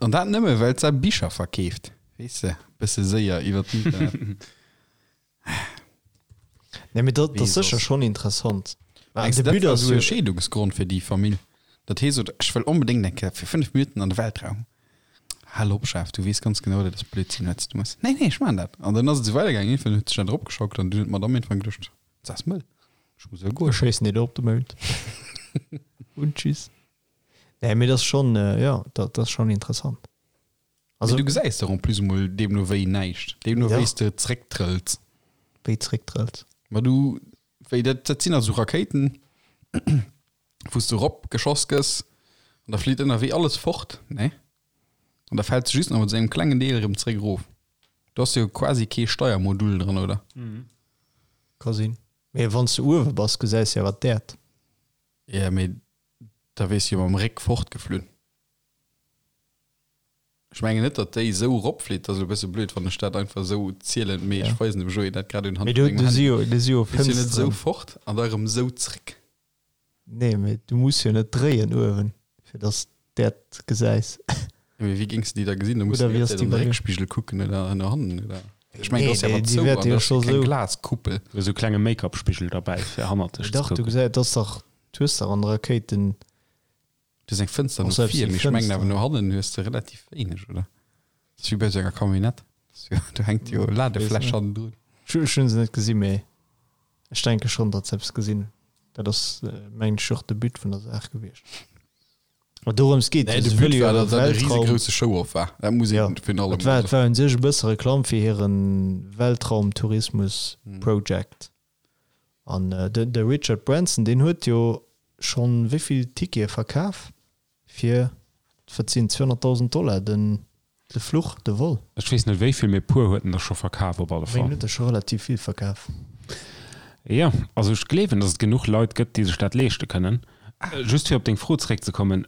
A: An dat nëmme well se Bicher verkeeft, weess de, bësse séier iwwer d'Internet.
B: Nee, mee dat
A: Wee
B: ass sécher
A: soss?
B: schonn interessant.
A: Mengs
B: De
A: de, dat
B: But
A: war
B: ass
A: esou e
B: jo.
A: Scheedungsgrond fir déi Famill? Dat hee sot, ech wëll onbedéngt eng Kéier fir 5 Minutten an de Weltraum. Hal op, Chef, du weess ganz genau, dat ass Blödsinn, wat s du méchs. Nee, nee, ech maachen dat. An dann ass et esou weidergaangen. Iergendwann huet sech dat eropgeschaukelt an dunn huet d'Madame iergendwann geduecht, Dat ass mëll, ech muss elo goen.
B: Ech schéissen dir do op de Mound. Und tschüss. Nee, mee dat ass schonn, jo, dat ass schonn interessant.
A: Also, du gesäis der en plus emol deemno wéi näischt, deemno
B: Ja.
A: wéi s de zrécktrëlls.
B: Wéi zrécktrëlls?
A: Ma du, wéi dat, dat sinn also Rakéiten, wou s du erop geschoss gëss an da flitt ënnerwee alles fort, ne? An da fält se just nach mat esou engem klengen Deel erëm zréck erof. Do ass jo quasi kee Steiermodul dran, oder?
B: Ka sinn. Mee wann s du uewe bass, gesäis de jo awer d'Äerd.
A: Ja, mee da wiers jo mam Réck fortgeflunn. Ech mengen net, datt déi esou eropflitt. Dat ass elo e bësse blöd, wann ech dat einfach esou zielen, mee ech weisen dem Joé dat grad unhand
B: Mee vun do, mengem do si jo, do si jo
A: Flitt jo net esou Fënsteren. fort an da erëm esou zréck.
B: Nee, mee du muss jo net dréien uewen, fir datt s d'Äerd gesäis.
A: Jo, mee wéi géings de déi da gesinn? Da muss de
B: Oder
A: déi
B: wéi
A: ganze
B: ass
A: Zäit
B: déi
A: an de
B: bei dir?
A: Réckspigel kucken oder no hannen oder? Ech mengen,
B: Nee,
A: do ass jo
B: déi,
A: awer
B: déi
A: zou
B: wäerte
A: an
B: jo
A: do ass jo
B: scho
A: keng
B: sou.
A: Glaskuppel.
C: Do ass esou e klenge Make-up-Spigel derbäi, fir hannert dech
B: Mee
C: ze
B: dach, du
C: kucken.
B: gesäis, et ass dach, du hues dach an de Rakéiten
A: Du hues eng Fënster
B: och
A: no
B: selbst
A: vir,
B: déi
A: mee ech mengen awer
B: Fënster.
A: no hannen hues de relativ wéineg, oder? Dat ass wéi bei esou enger Camionnette. Dat ass jo, do hänkt jo
B: Ech weess
A: Ladefläsch
B: net.
A: hannendrun.
B: Ech hu se net gesinn, mee ech denke schonn, datt se eppes gesinn hunn. Dat ass, mengen ech, och de But vun der Saach gewiescht. Ma dorëms geet
A: Nee,
B: et jo,
A: de
B: se
A: But
B: wëlle jo
A: war,
B: hire
A: datt dat e
B: Weltraum.
A: risegrouse Show-off war. Dat muss
B: Ja,
A: een virun allem
B: et war,
A: mol
B: et war un sech e bësse Reklamm fir hire Weltraumtourismus-Project. An de, de Richard Branson, deen huet jo schonn wéi vill Tickete verkaf fir, wat sinn 200.000 Dollar den, de Fluch, de Vol?
C: Ech weess net wéi vill, mee e puer huet en der scho verkaf op alle
B: Ech mengen,
C: Fall.
B: huet der scho relativ vill verkaf.
C: Jo, also ech gleewen, datt et genuch Leit gëtt, déi sech dat leeschte kënnen. Just fir op deng Fro zeréckzekommen,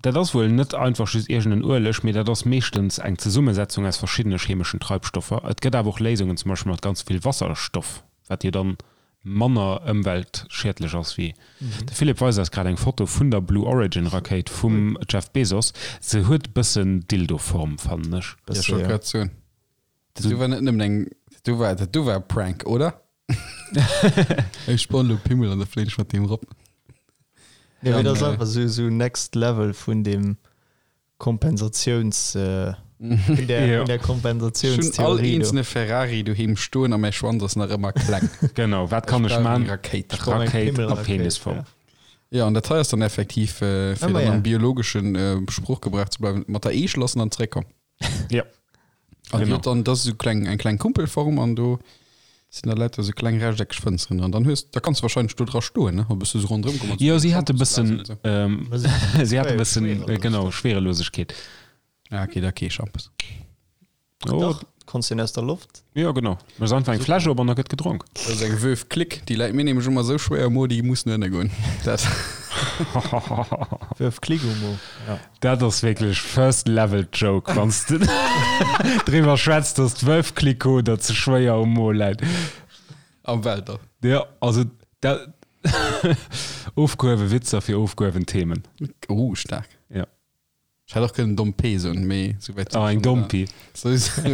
C: dat ass wuel net einfach just iergend en Ueleg, mee dat ass meeschtens eng Zesummesetzung aus verschiddene chemeschen Treibstoffer. Et gëtt awer och Léisungen, zum Beispill mat ganz vill Wasserstoff, wat jo dann manner ëmweltschiedlech ass wéi. De Philippe weist eis grad eng Foto vun der Blue Origin Rakéit vum Jeff Bezos. Se huet e bëssen Dildo-Form, fannen ech.
A: Ja, ech wollt grad soen, dat do war net nëmmen eng, dat do war, dat do war e Prank, oder? Ech spannen elo Pimmel an da fléien ech mat deem erop.
B: Nee, mee dat ass
A: Dann,
B: einfach sou, sou next level vun deem Kompensatiouns, vun der,
C: Ja.
B: vun der
A: Ech hunn all
B: Kompensatiounstheorie do.
A: eenzelne Ferrari doheem stoen a mäi Schwanz ass nach ëmmer kleng.
C: Genau, wat kann
A: Ech
C: ech
A: brauch eng
C: man?
A: Rakéit.
B: Ech brauch eng
C: Rakéit a
B: Pimmelrakéit,
C: Penisform.
B: ja.
A: Ja, an dat hei ass dann effektiv, äh, fir
B: Ëmmer,
A: dann
B: ja.
A: am biologeschen äh, Sproochgebrauch ze bleiwen, mat der Eech lassen an zréckkomm.
C: Ja.
A: An
C: Genau.
A: genau. dann das ist so kleng eng kleng Kumpelform an do sinn da lauter so kleng rechteckeg Fënsteren dran. Dann hues da kanns du wahrscheinlech do dra stoen, ne? A bësse so ronderëm kommen.
C: Jo, si hat e bëssen, ähm, si hat e bëssen,
B: Schwerelosegkeet.
C: genau, Schwerelosegkeet.
A: Ah, okay, da kee Schampes.
C: Oh,
B: Dach, konns den aus der Loft.
C: jo, genau. Méchs einfach eng Fläsch op an da gëtt gedronk.
A: Dat ass eng Veuve Clique, déi läit mir nämlech ëmmer esou schwéier um Mo, déi muss no ënne goen. Dat.
B: Veuve Clique um Mo, ja.
C: Dat ass wierklech first level joke, wann s de driwwer schwätz, dass d'Veuve Clicquot der ze schwéier um Mo läit.
A: Am Weltall.
C: Jo, also dat ofgehuewe Witzer fir ofgehuewen Themen.
A: Oh, staark.
C: Ja.
A: Ech hätt och kënnen Domm P soen, mee sou wäit sinn
C: Ah,
A: ech
C: eng
A: dann
C: Dompi.
A: Sou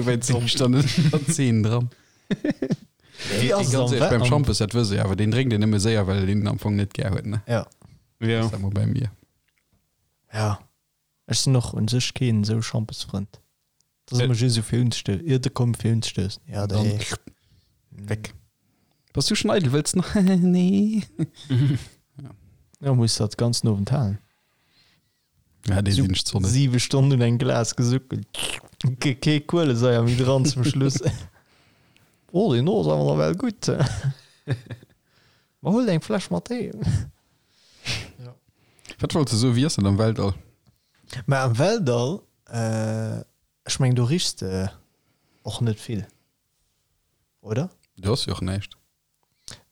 A: wäit sinn ech dann net an der Zeen dran.
B: Wéi ass et
A: Ganz
B: am
A: ehrlech, beim
B: am
A: Schampes, dat wëss ech awer, deen drénkt een nëmme séier, well een en am Fong net gär huet, ne?
B: Ja.
C: Ja.
A: Ass dat mol bei mir.
B: Ja. Ech sinn och un sech keen esou Schampesfrënd. Dat ass ëmmer just esou fir unzestoussen. Ier de komm fir unzestoussen. Ja,
A: Dann
B: dee.
A: weg. Bass du schon eidel, wëlls nach? Nee.
B: Ja, muss dat ganzen Owend halen.
A: Ja, dee sinn ech zwar net.
B: Siwe Stonnen un engem Glas gesuckelt. Ke kee Kuelesaier méi dran zum Schluss. Oh, deen do ass awer nawell gutt. Ma huel eng Fläsch mat heem.
A: Wat wollt de soen, wéi ass dat am Weltall?
B: Mä am Weltall, ech mengen do richs de och net vill, oder?
A: Do ass jo och näischt.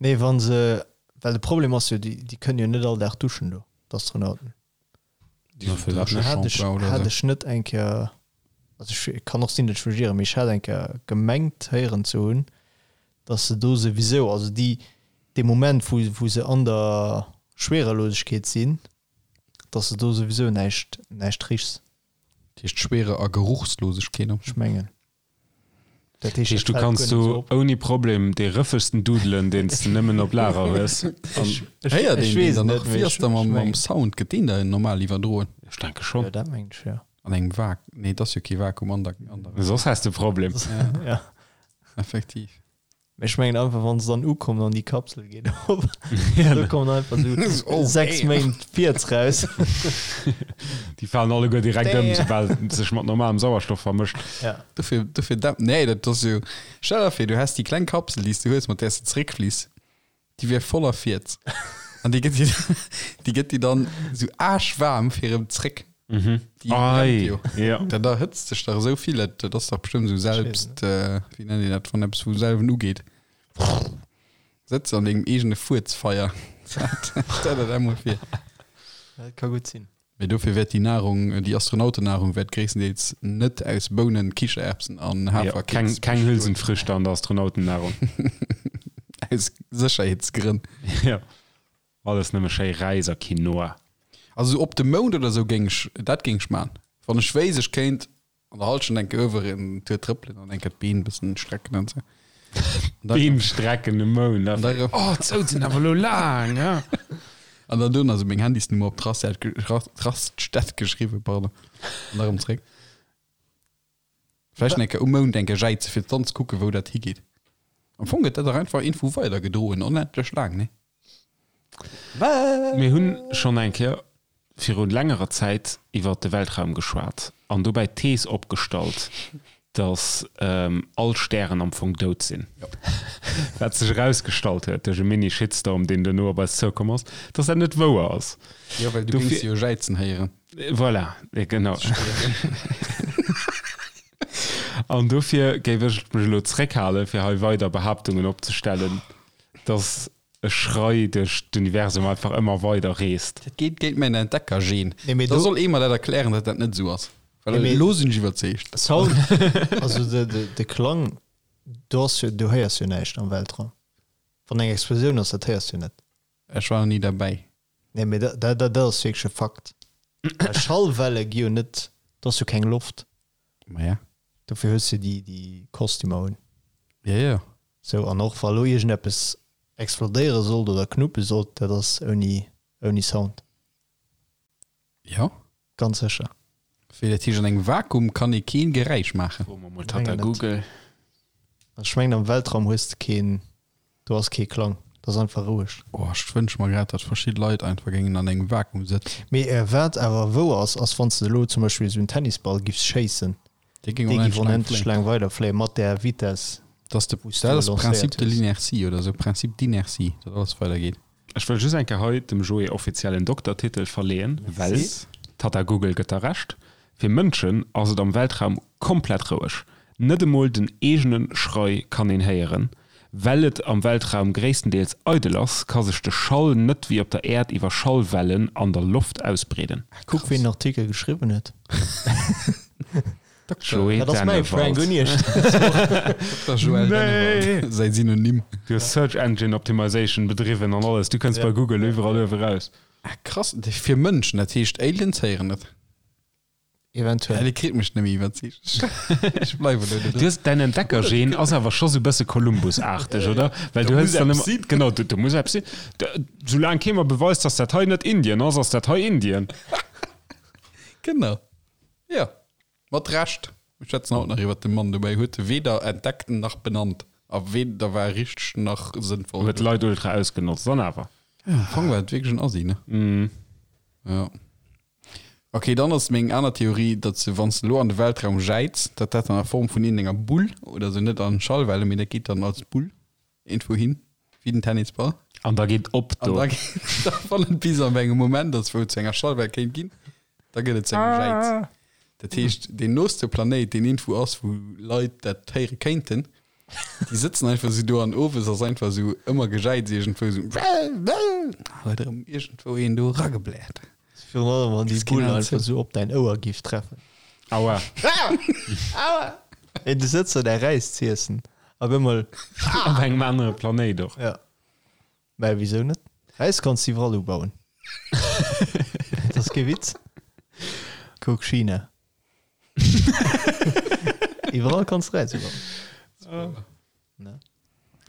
B: Nee, wann se, well de Problem ass jo, déi, déi kënnen jo net all Dag duschen do, d'Astronauten.
A: Déi hunn
B: Hat ech,
A: Drécheshampoing oder
B: hat
A: esou.
B: ech net eng Kéier, also ech kann och sinn, datt ech mech ieren, mee ech hat eng Kéier gemengt héieren ze hunn, datt se do souwisou, also déi, dee Moment wou, wou se an der Schwerelosegkeet sinn, datt se do souwisou näischt, näischt richs.
A: Dat heescht Schwere a Geruchslosegkeet.
B: Ech mengen. Dat heescht,
C: Heescht, du
B: dat fält
C: kanns
B: guer net
C: do
B: sou op.
C: ouni Problem dee rëffegsten dudelen, deen s de nëmmen op Lager hues. An
B: Ech,
A: Héiert
B: ech
A: een deen
B: weess
A: dann
B: net,
A: nach?
B: mee
A: Wéi ass
B: ech,
A: da
B: ech
A: mam, mam
B: mengen.
A: Sound? Gëtt deen da normal iwwerdroen?
C: ech denke schonn.
B: Jo, dat mengen ech, jo.
A: An engem Vak-, nee, et ass jo kee Vakuum an der, an der.
C: Soss häss de e Problem.
A: Ja,
B: Ja.
A: effektiv.
B: Mee ech mengen einfach, wann se dann ukommen an déi Kapsel geet op,
C: Ja,
B: do kommen einfach sou
A: Oh,
B: 6
A: damn.
B: Méint Fiez raus.
C: Déi falen alleguer direkt ëm,
B: Damn.
C: soubal et sech mat normalem Sauerstoff vermëscht.
B: Ja.
A: Dofir, dofir dämp, nee, dat ass jo, stell der vir, du häss déi kleng Kapsel, déi s du hues, mat där s de zeréckfliss, déi wier voller Fiez. An déi gëtt dir, déi gëtt dir dann sou aarschwaarm fir erëm zréck.
C: Mhm.
A: Déi brennt
C: Ei,
A: jo.
C: ja.
A: Dat erhëtzt sech dach esou vill, dat, dat ass dach bestëmmt esou selbst, äh, wéi nennt een dat, wann eppes vu selwen ugeet. Sëtz an dengem eegene Fuerzfeier. Stell der dat mol vir.
B: Dat ka gutt sinn.
A: Mee dofir wäert déi Nahrung, déi Astronautennahrung wäert gréisstendeels net aus Bounen, Kichererbsen an
C: Ja,
A: Haferkeks
C: keng, keng
A: bestoen.
C: Hülsenfrüchte an der Astronautennahrung.
A: Aus Sécherheetsgrënn.
C: Ja. Alles nëmme schéi Räis a Quinoa.
A: Also sou op de Mound oder sou géing ech, dat géing ech man. Wann ech wéisst, ech kéint an der Halschent eng Kéier uewer en Tour trëppelen an eng Kéier d'Been bëssen strecken an sou. An da-
C: Been strecken um Mound.
A: An da rëm.
C: Oh, d'Sout sinn awer elo laang, ja.
A: An dann dono sou meng Handysnummer op d'Raststätt ge-, Raststätt geschriwwen, pardon. An da rëm zréck. Vläicht eng Kéier um Mound eng Kéier jäize fir dann ze kucken, wou dat higeet. Am Fong gëtt dat dach einfach iergendwou weidergedroen, onendlech laang, nee?
C: Mir hunn schonn eng Kéier viru längerer Zäit iwwer de Weltraum geschwat an dobäi d'Thees opgestallt, datt all Stären am Fong dout sinn. Wat sech erausgestallt huet duerch e Mini-Shitstorm, deen duerno op eis zoukomm ass, datt dat net wouer ass.
A: Jo, well du géings jo jäizen héieren.
C: Voilà, genau. An dofir géif ech mech elo zréckhalen, fir hei weider Behaaptungen opzestellen, datt e Schrei duerch d'Universum einfach ëmmer weider reest.
A: Dat geet géint mäin Entdeckergen.
B: Nee, mee
A: Da
B: do-
A: soll ee mer dat erklären, datt dat net esou ass. Well
B: Nee, mee-
A: elo sinn ech iwwerzeegt.
B: Sound, also de, de, de Klang, do ass jo, du héiers jo näischt am Weltraum. Wann eng Explosioun ass, dat héiers du net.
A: Ech war nach ni derbäi.
B: Nee, mee dat, dat, dat ass wierklech e Fakt. Well Schallwelle gi jo net, do ass jo keng Loft.
A: Maja.
B: Dofir hues du déi, déi Kostümer un.
A: Ja, ja.
B: Sou, an och wa lo iergendeppes explodéiere sollt oder knuppe sollt, dat ass ouni, ouni Sound.
A: Ja.
B: Ganz sécher.
A: Wéi dat heescht, an engem Vakuum kann ee keen Geräisch maachen?
C: Froe mer mol Tata
B: Mengen net.
C: Google.
B: Ech mengen am Weltraum hues de keen, do ass kee Klang, dat ass einfach roueg.
A: Oh, ech wënsche mer grad, datt verschidde Leit einfach géingen an engem Vakuum sëtzen.
B: Mee wat awer wouer ass, ass wann s de elo zum Beispill esou en Tennisball giffs schéissen,
A: Dee géing
B: dee giff
A: onendlech laang
B: onendlech
A: fléien.
B: laang weiderfléien mat där Vitess,
A: Dat ass de,
B: wou s du
A: dat
B: e
A: ass
B: lancéiert
A: Principe de
B: hues.
A: l'inertie oder esou, Principe d'inertie, datt alles weidergeet.
C: Ech wëll just eng Kéier hei dem Joé offiziell en Doktertitel verleeën, well Tata Google gëtt der Recht, Fir Mënschen ass et am Weltraum komplett roueg. Net emol den eegene Schrei kann een héieren. Well et am Weltraum gréisstendeels eidel ass, ka sech de Schall net wéi op der Äerd iwwer Schallwellen an der Loft ausbreeden.
B: Kuck ween den Artikel geschriwwen huet.
C: Joé
B: Dat ass mäi Frank
C: Dennewald.
B: Uniesch.
A: Dr. Joël Dennewald, säi Synonym.
C: Du hues Search Engine Optimization bedriwwen an alles, du kënns bei Google iwwerall uewe raus.
A: Ah, krass, fir Mënschen, dat heescht Aliens héieren et.
B: Eventuell.
A: Ja, Dir kritt mech net méi iwwerzeegt. Ech bleiwen elo do
C: Du
A: dran.
C: hues däin Entdeckergen ass awer scho sou bësse Columbus-aarteg, oder? Well du
A: Do
C: hëls
A: muss
C: dann
A: eppes
C: ëmmer,
A: sinn.
C: genau, do, do muss eppes sinn. Da, soulaang kee mer beweist, dass dat hei net Indien ass, ass dat hei Indien.
A: Genau. Ja, mat Recht. Mir schwätzen haut nach iwwert de Mann, dobäi huet e weder entdeckt nach benannt a weder war richteg nach sënnvoll.
C: Huet d'Leit ultra ausgenotzt, an awer.
A: Ja, am Fong war et wierklech en Assi, ne?
C: Mhm.
A: Ja. Ok, dann ass meng aner Theorie, datt se, wann s de elo an de Weltraum jäiz, datt dat dann a Form vun iergendenger Bull oder sou, net an Schallwelle, mee dat geet dann als Bull iergendwou hin, wéi den Tennisball.
C: An da geet op
A: An
C: do.
A: da geet, da wann et bis an engem Moment ass, wou et zu enger Schallwell kéint ginn, da gëtt et zu engem Jäiz. Dat heescht, deen nooste Planéit, deen iergendwou ass, wou Leit dat héiere kéinten, déi sëtzen einfach sou do an owes ass einfach sou ëmmer Gejäiz iergendwou sou, huet erëm iergendwou een do eragebläert.
B: Virun allem wann déi
A: Keen
B: Bull
A: Ahnung.
B: einfach sou op däin Ouer giff treffen.
C: Aua.
B: Ey, du sëtz do däi Räis z'iessen a op eemol.
C: Op engem anere Planéit och.
B: Ja. Mä wisou net? Räis kanns du iwwerall ubauen. Dat ass kee Witz. Kuck China. Iwwerall kanns du Räis ubauen. Ne?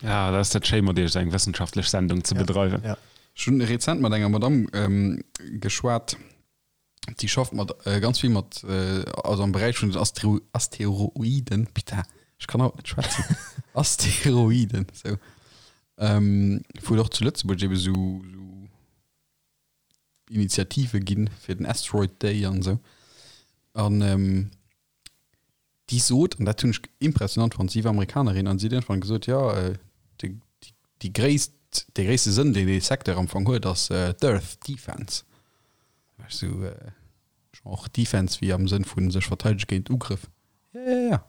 C: Ja, dat ass dat schéi mat iech esou eng wëssenschaftlech Sendung ze bedreiwen.
B: Ja.
A: Ech hunn rezent mat enger Madamm ähm, geschwat, déi schafft mat äh, ganz vill mat äh, also am Beräich vun den Astero Asteroiden. Putain, ech kann haut net schwätzen. Asteroiden, sou. Ähm, wou et och zu Lëtzebuerg ebe sou, sou Initiative ginn fir den Asteroid Day an esou. An ähm, déi sot, an dat hunn ech impressionant fonnt, si war Amerikanerin an si huet iergendwann gesot, jo, déi, déi gréisst, dee gréisste Sënn, deen dee Secteur am Fong huet, ass d'Earth Defense. Da war ech esou, genre Defense wéi am Sënn vu sech verteidege géint Ugrëff. Ja, ja, ja.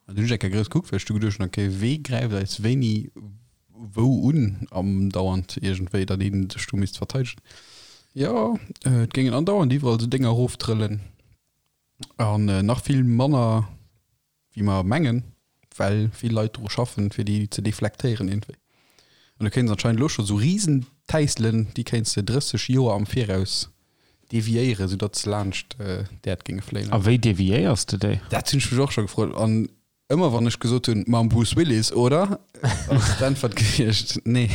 A: An du hunn ech eng Kéier grouss gekuckt, well ech du geduecht hunn, okay, wee gräift eis wéini wou? wou un andauernd iergendwéi, datt ee sech do misst verteidegen. Jo, et géingen andauernd iwwerall esou Dénger eroftrëllen an nach vill manner wéi mer mengen, well vill Leit dru schaffen, fir déi ze deflektéieren iergendwéi. An du kéints anscheinend elo scho sou Risentäisselen, déi kéints de 30 Joer am Viraus deviéieren, soudatt se laanscht d'Äerd géinge fléien.
C: A wéi deviéiers de déi?
A: Dat hunn ech mech och scho gefrot. An ëmmer wann ech gesot hunn, mam Bruce Willis, oder? ass d'Äntwert gewiescht, nee,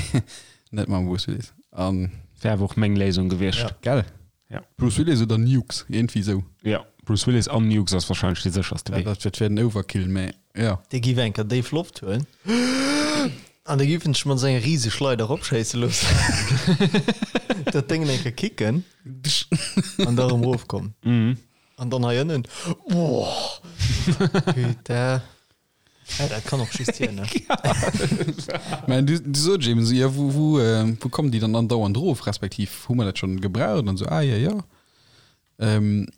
A: net mam Bruce Willis. An.
C: Wär awer och meng Léisung gewiescht.
A: Gell?
C: Ja.
A: Bruce Willis oder Nukes, iergendwéi sou.
C: Ja, Bruce Willis an Nukes ass wahrscheinlech dee sécherste Wee.
A: Dat wär den Overkill, mä jo.
B: Dee giff eng Kéier déif Loft huelen an da giff en sech mat senger riese Schleider eropschéisse loossen, dat Déngen eng Kéier kicken an da erëm erofkommen. An dann hei ënnen, Boah, putain. Ja, dat kann och just hien, ne?
A: Mä du, du sot eben esou, ja, wou, wou, äh, wou kommen déi dann andauernd erof, respektiv hu mer dat schonn gebraucht an esou, ah ja, ja. Ähm,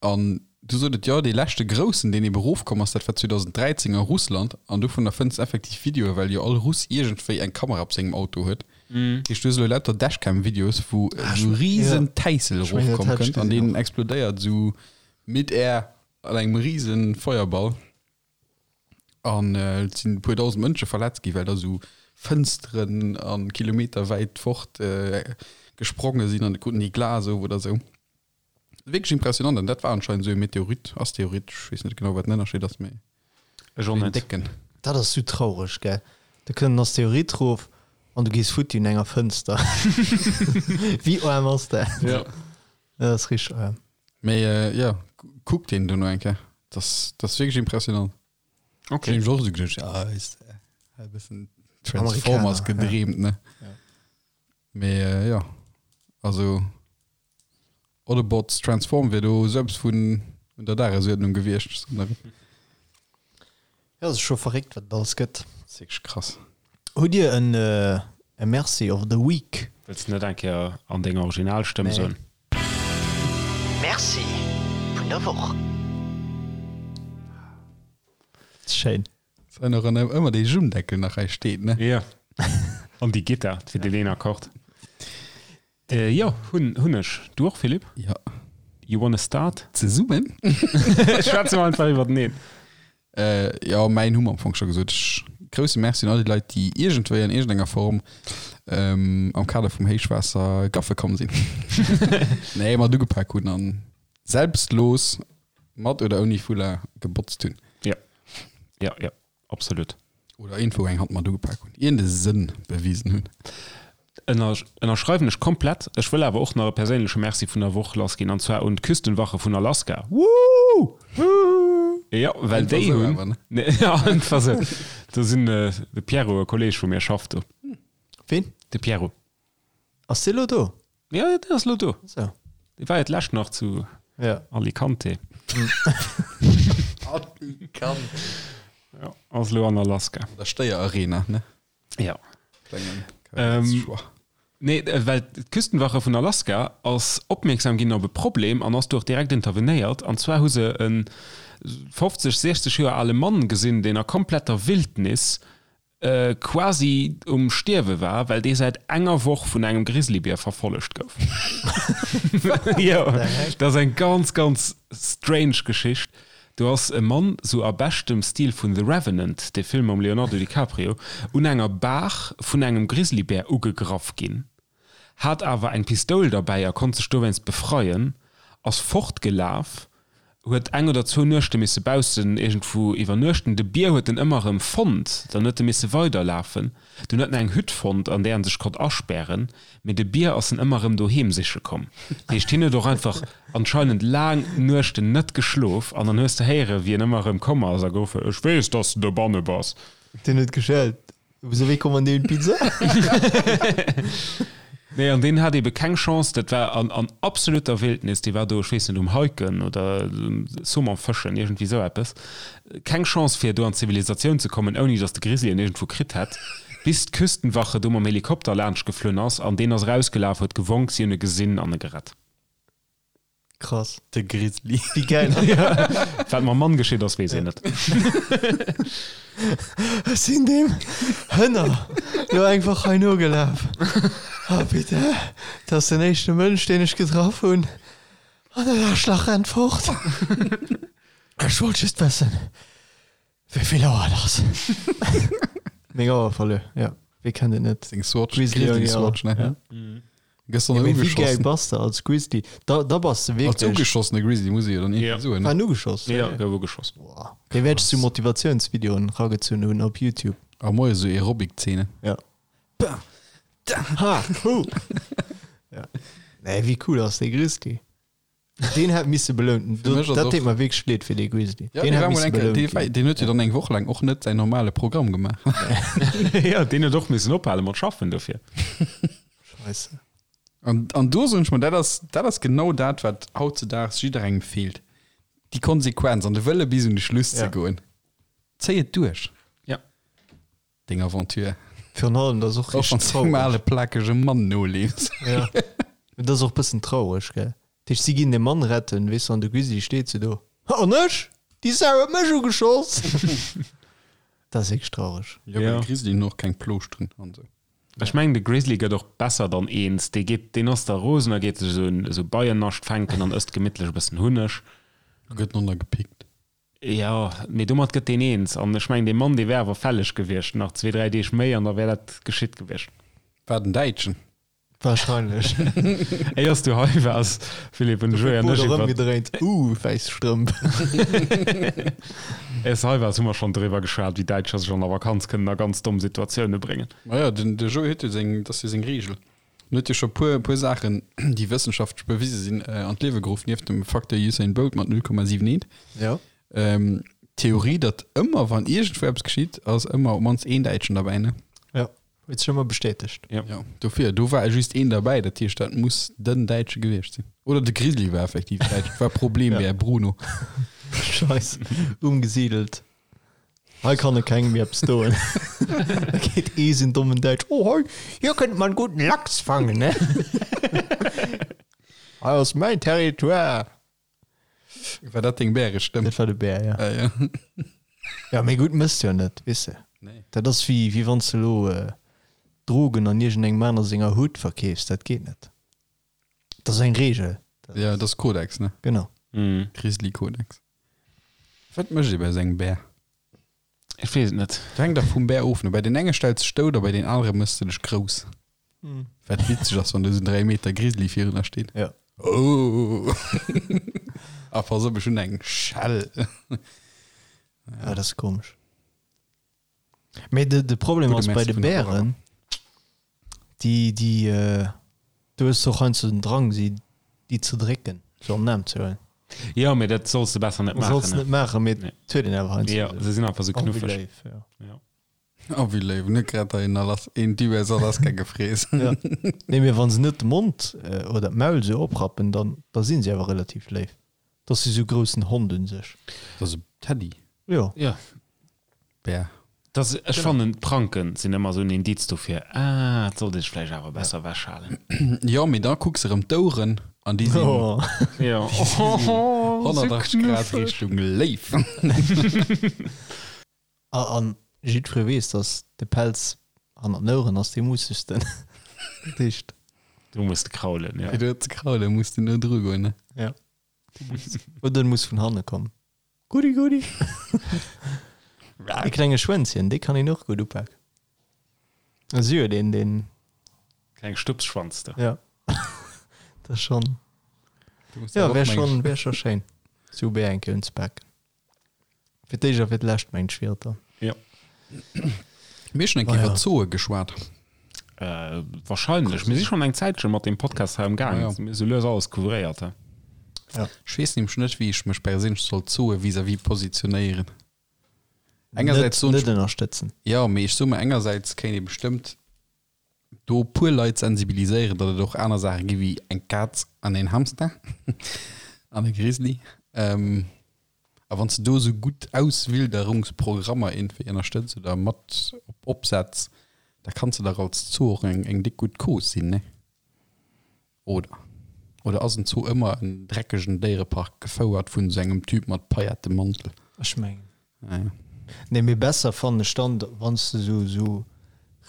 A: an du sot et, jo, dee leschte groussen, deen eben erofkomm ass, dat war 2013 a Russland an dovunner fënns de effektiv Videoe, well jo all Russ iergendwéi eng Kamera op sengem Auto huet. Dat heescht, du hues elo lauter Dashcam-Videos, wou esou risen Täissel erofkomm kënnt an deen explodéiert esou mid-air an engem risen Feuerball. An et sinn e puer dausend Mënsche verletzt ginn, well da sou Fënsteren a kilometerwäit fort gespronge sinn an et kruten déi Glas of oder sou. Wierklech impressionant. An dat war anscheinend esou e Meteorit, Asteroid, ech weess net genau, wat den Ënnerscheed ass, mee
C: Ech och
A: deen
C: net.
A: décken.
B: Dat ass sou traureg, gell? Da kënnt en Asteroid rof an du gees futti un enger Fënster. Wéi aarm ass dat?
A: Ja.
B: Dat ass richteg aarm.
A: Mee jo, kuck deen dono eng Kéier. Dat ass wierklech impressionant.
C: Okay.
A: Ech hunn och esou geduecht, ja, weess de, e bëssen Transformers
B: Amerikaner, ja.
A: gedreemt, ne?
B: Ja.
A: Mee jo, also Autobots Transform wier do esou eppes vun un der Dagesuerdnung gewiescht.
B: Ja, ass scho verréckt, wat et alles gëtt.
A: Dat ass wierklech krass.
B: Hutt Dir en e Merci of the Week?
C: Wëlls de net eng Kéier an denger Originalstëmm
B: Nee.
C: soen?
F: Merci vun der Woch.
B: Schéin.
A: Dass hei nach ëmmer dee Jummdeckel nach hei steet, ne?
C: Jo. An déi Gittar fir deen een Akkord. Jo, hunn hunn ech. Du och, Philippe?
A: Jo.
C: You wanna start?
A: Zesummen?
C: Schwätze mer einfach iwwerteneen.
A: Jo, mäin hu mer am Fong scho gesot. Ech grousse Merci un all déi Leit, déi iergendwéi an iergendenger Form am Kader vum Héichwaasser gaffe komm sinn. Nee, mat ugepak hunn an selbstlos mat oder ouni Foulard gebotzt hunn.
C: Jo, jo, jo. Absolut.
A: Oder iergendwou eng Hand mat ugepak hunn, iergende Sënn bewisen hunn.
C: Ënner, ënnerschreiwen ech komplett. Ech wëll awer och nach e perséinleche Merci vun der Woch lassginn, an zwar un d'Küstenwache vun Alaska. Woo! Jo, well
A: Einfach
C: déi
A: sou
C: hunn.
A: awer, ne?
C: Nee, ja, einfach sou. Do sinn, de Pierrot, e Kolleeg vu mir, schafft do.
B: Ween?
C: De Pierrot.
B: Ass dee lo do?
C: Ja, deen ass lo do.
B: So.
C: Dee war jo d'lescht nach zu
B: Ja.
C: Alicante.
A: Alicante.
C: Ja, ass lo an Alaska.
A: An der Stéier-Arena, ne?
C: Ja.
A: Klengen
C: Ähm,
A: Choix.
C: Nee, äh, well d'Küstenwache vun Alaska ass opmierksam ginn op e Problem an ass do och direkt intervenéiert. An zwar hu se e 50, 60 Joer ale Mann gesinn, deen a kompletter Wildnis quasi um Stierwe war, well dee säit enger Woch vun engem Grizzlybier verfollegt gouf. Jo, dat ass eng ganz, ganz strange Geschicht. Do ass e Mann, sou a beschtem Stil vun The Revenant, dee Film mam Leonardo DiCaprio, un enger Baach vun engem Grizzlybär ugegraff ginn, hat awer eng Pistoul derbäi a konnt sech dowéinst befreien, ass fortgelaf, huet eng oder zwou Nuechte misse baussen iergendwou iwwernuechten. De Bier huet en ëmmer erëm fonnt, dann huet e misse weiderlafen. Dunn huet en eng Hütt fonnt, an där en sech konnt aspären, mee de Bier ass en ëmmer erëm doheem siche komm. Dat heescht, hien huet och einfach anscheinend laang Nuechten net geschlof an dann hues de héieren, wéi en ëmmer erëm komm ass a geruff huet, Ech weess, dass de dobanne bass.
B: Deen huet geschellt. Vous avez commandé une pizza?
C: Nee, an deen hat ebe keng Chance, dat war an, an absoluter Wildnis, dee war do, ech weess net, um Hiken oder Saumon fëschen, iergendwéi esou eppes. Keng Chance fir do an d'Zivilisatioun ze kommen, ouni datt de Grizzly en iergendwou kritt hätt, bis d'Küstenwache do mam Helikopter laanscht geflunn ass an deen ass erausgelaf, huet gewonk, si hunn e gesinn an e gerett.
B: Krass.
A: De Grizzly.
B: Wéi gäil.
C: Wat mam Mann geschitt ass, weess een net.
B: Ech sinn deem Hënner lo einfach hei nogelaf. Oh bitte, dat ass den éischte Mënsch, deen ech getraff hunn. An dat Aarschlach rennt fort. Ech wollt just wëssen, wéi vill Auer et ass. Meng Auer verluer, jo. Wie kennt et net?
A: Seng Swatch,
B: Grizzly
A: Grizzly
B: Auer,
A: Swatch, ne?
B: ja.
A: Gëss dann
B: Ja, mee wéi gäil
A: ugeschossen.
B: bass de als Grizzly? Da, da bass de
A: Als
B: wierklech.
A: ugeschossene Grizzly muss ee jo dann
C: Ja.
A: irgendwie soen,
B: War
A: ne?
B: en ugeschoss?
C: Ja, gouf ugeschoss.
B: Boah. Dee wäert ech zu Motivatiounsvideoen ragezunn hunn op YouTube.
A: A moies esou Aerobic-Zeenen.
B: Ja. Ha, hu. Ja. Nee, wéi cool ass dee Grizzly? Deen hätt misse belount.
A: Fir mech ass
B: Dat
A: och-
B: deet mer wierklech leed fir dee Grizzly.
A: Ja,
B: Deen
A: dee
B: hätt
A: war mol
B: misse
A: eng Kéier,
B: belount
A: dee war,
B: ginn.
A: deen huet jo dann eng Woch laang och net säin normale Programm gemaach.
C: Ja, deen huet och missen ophale mat schaffen dofir.
B: Scheisse.
A: An, an do soen ech mer, dat ass, dat ass genau dat, wat hautzedaags jidderengem feelt. Déi Konsequenz an de Wëlle bis un de Schluss ze
B: Ja.
A: goen. Zéi et duerch.
C: Ja.
A: Deng Aventure.
B: Virun allem, dat ass och
A: Och wann
B: richteg
A: s engem
B: traureg.
A: ale plakege Mann noleefs.
B: Ja. Mee dat ass och bëssen traureg, gell? Dat heescht, si ginn de Mann retten, weess de, an de Grizzly steet sou do, An ech? Déi Sau huet mech ugeschoss! Dat ass wierklech traureg.
A: Jo, well de Grizzly hunn och keng Plooschteren an esou.
C: Ech mengen, de Grizzly gëtt och besser dann eens. Dee geet, deen ass da rosen a geet sech esou en esou Beiennascht fänken an ësst gemittlech e bëssen Hunneg.
A: A gëtt nonner gepickt.
C: Jo, mee domat gëtt deen eens. An ech mengen, dee Mann, dee wär awer fälleg gewiescht. Nach zwee, dräi Deeg méi an da wär dat geschitt gewiescht.
A: War den Däitschen.
B: Wahrscheinlech.
C: Éiers du hei waars, Philippe, hunn de Joé an ech
B: Oder
C: iwwer.
B: ëmgedréint. Uh, wäiss Strëmp.
C: Éiers du hei waars, hu mer schonn driwwer geschwat, wéi Däitscher sech an der Vakanz kënnen a ganz domm Situatioune bréngen.
A: Maja, den, de Joé huet jo seng, dat ass jo seng Reegel. En huet jo scho puer, puer Saachen, déi wëssenschaftlech bewise sinn, an d'Liewe geruff, nieft dem Facteur Usain Bolt mat 0,78.
B: Ja.
A: Ähm, d'Theorie, datt ëmmer, wann iergendwou eppes geschitt, ass ëmmer op d'mannst een Däitschen derbäi, ne?
B: Ja, huet sech ëmmer bestätegt.
C: Ja.
A: Ja, dofir, do war just een derbäi, dat heescht, dat muss den Däitsche gewiescht sinn. Oder de Grizzly war effektiv Däitsch, war Problembär, Bruno.
B: Scheiss, umgesiedelt. Hei kann e kengem méi eppes doen. Da geet ee sinn dommen Däitsch, Oh hei, hier kënnt man guten Lachs fangen, ne? Hei ass mäin Territoire.
A: War dat deng Bärestëmm?
B: Dat war de Bär, ja.
A: Ah, ja.
B: Ja, mee gutt mëss jo net, weess de.
A: Nee.
B: Dat ass wéi, wéi wann s de elo Drogen an iergendengem aner senger Hut verkeefs. Dat geet net. Dat ass eng Reegel.
A: Ja, dat ass Kodex, ne?
B: Genau.
A: Grizzly-Kodex. Wat mécht ee bei esou engem Bär?
C: Ech weess et net.
A: Dat hänkt dach vum Bär of, ne? Bei den enge stells de dech dout a bei den anere méchs de dech grouss. Wat witzeg ass, wann do esou en 3 Meter Grizzly virun der steet.
B: Ja.
A: Oh! A pass op, ech hunn eng Schell.
B: Ja, dat ass komesch. Mee de, de Problem
A: Gudde
B: ass bei
A: Merci
B: de
A: vun der
B: Bären, déi, déi, äh, du hues och heiansdo den Drang, si déi ze drécken, sou an den Aarm ze huelen.
C: Jo, mee dat solls de besser net maachen.
B: Solls net maachen, mee
C: Nee.
B: et huet een awer heiansdo.
C: Jo, se sinn einfach sou
B: Oh, wéi
C: knuffeg.
B: léif, ja.
C: Ja.
A: Oh, wéi léif. Net grad hei en Alas een Typ aus Alaska gefrees.
B: Ja. Nee, mee wann se net de Mond äh, oder d'Maul sou oprappen, dann, da sinn se awer relativ léif. Dat ass sou groussen Hond un sech.
A: Dat ass e Teddy.
B: Jo.
C: Ja.
A: Bär.
C: Das, ech fannen d'Pranken sinn ëmmer sou en Indiz dofir, ah, et sollt ee sech vläicht awer besser ewechhalen.
A: Jo, mee da kucks erëm d'Oueren an déi sinn
B: Oh.
C: Ja.
A: 180 Grad Richtung Léif.
B: A, an jiddweree weess, dass de Pelz hannert den Oueren ass dee mussegsten. Dat heescht.
C: Du muss de kraulen, ja.
A: Fir do ze kraulen, muss de no dru goen, ne?
B: Ja. Oder en muss vun hanne kommen. Goodie, goodie. E klenge Schwänzchen, dee kann een och gutt upaken. Si huet een, deen.
C: Kleng Stupsschwanz do.
B: Ja. Dat ass schonn. Ja, wär schonn, wär scho schéin, sou Bär eng Kéier unzepaken. Fir d'éischt a fir d'lescht, mengt ech, wier et dann.
C: Ja.
A: Mir hu schonn eng Kéier iwwer Zooe geschwat.
C: Äh, wahrscheinlech. Mir si schonn eng Zäitche mat deem Podcast hei am Gaang.
A: Ja, ja.
C: Mir hu sou lues alles couvréiert, he.
B: Ja.
A: Ech weess nämlech net, wéi ech mech perséinlech soll Zooe vis-à-vis positionéieren. Engersäits soen
B: Net,
A: ech,
B: net ënnerstëtzen.
A: jo, mee ech soe mer, engersäits kéint ee bestëmmt do e puer Leit sensibiliséieren, datt et och aner Saache gi wéi eng Kaz an een Hamster an e Grizzly. Ähm, a wann s de do esou gutt Auswilderungsprogrammer iergendwéi ënnerstëtz oder mat op opsetz, da kanns de dach als Zoo och eng, eng déck gutt Cause sinn, ne? Oder? Oder ass en Zoo ëmmer en dreckegen Déierepark, gefouert vun esou engem Typ mat Paillettemantel?
B: Ech mengen.
A: Ah ja.
B: Nee, mee besser fannen ech dann, wann s de sou sou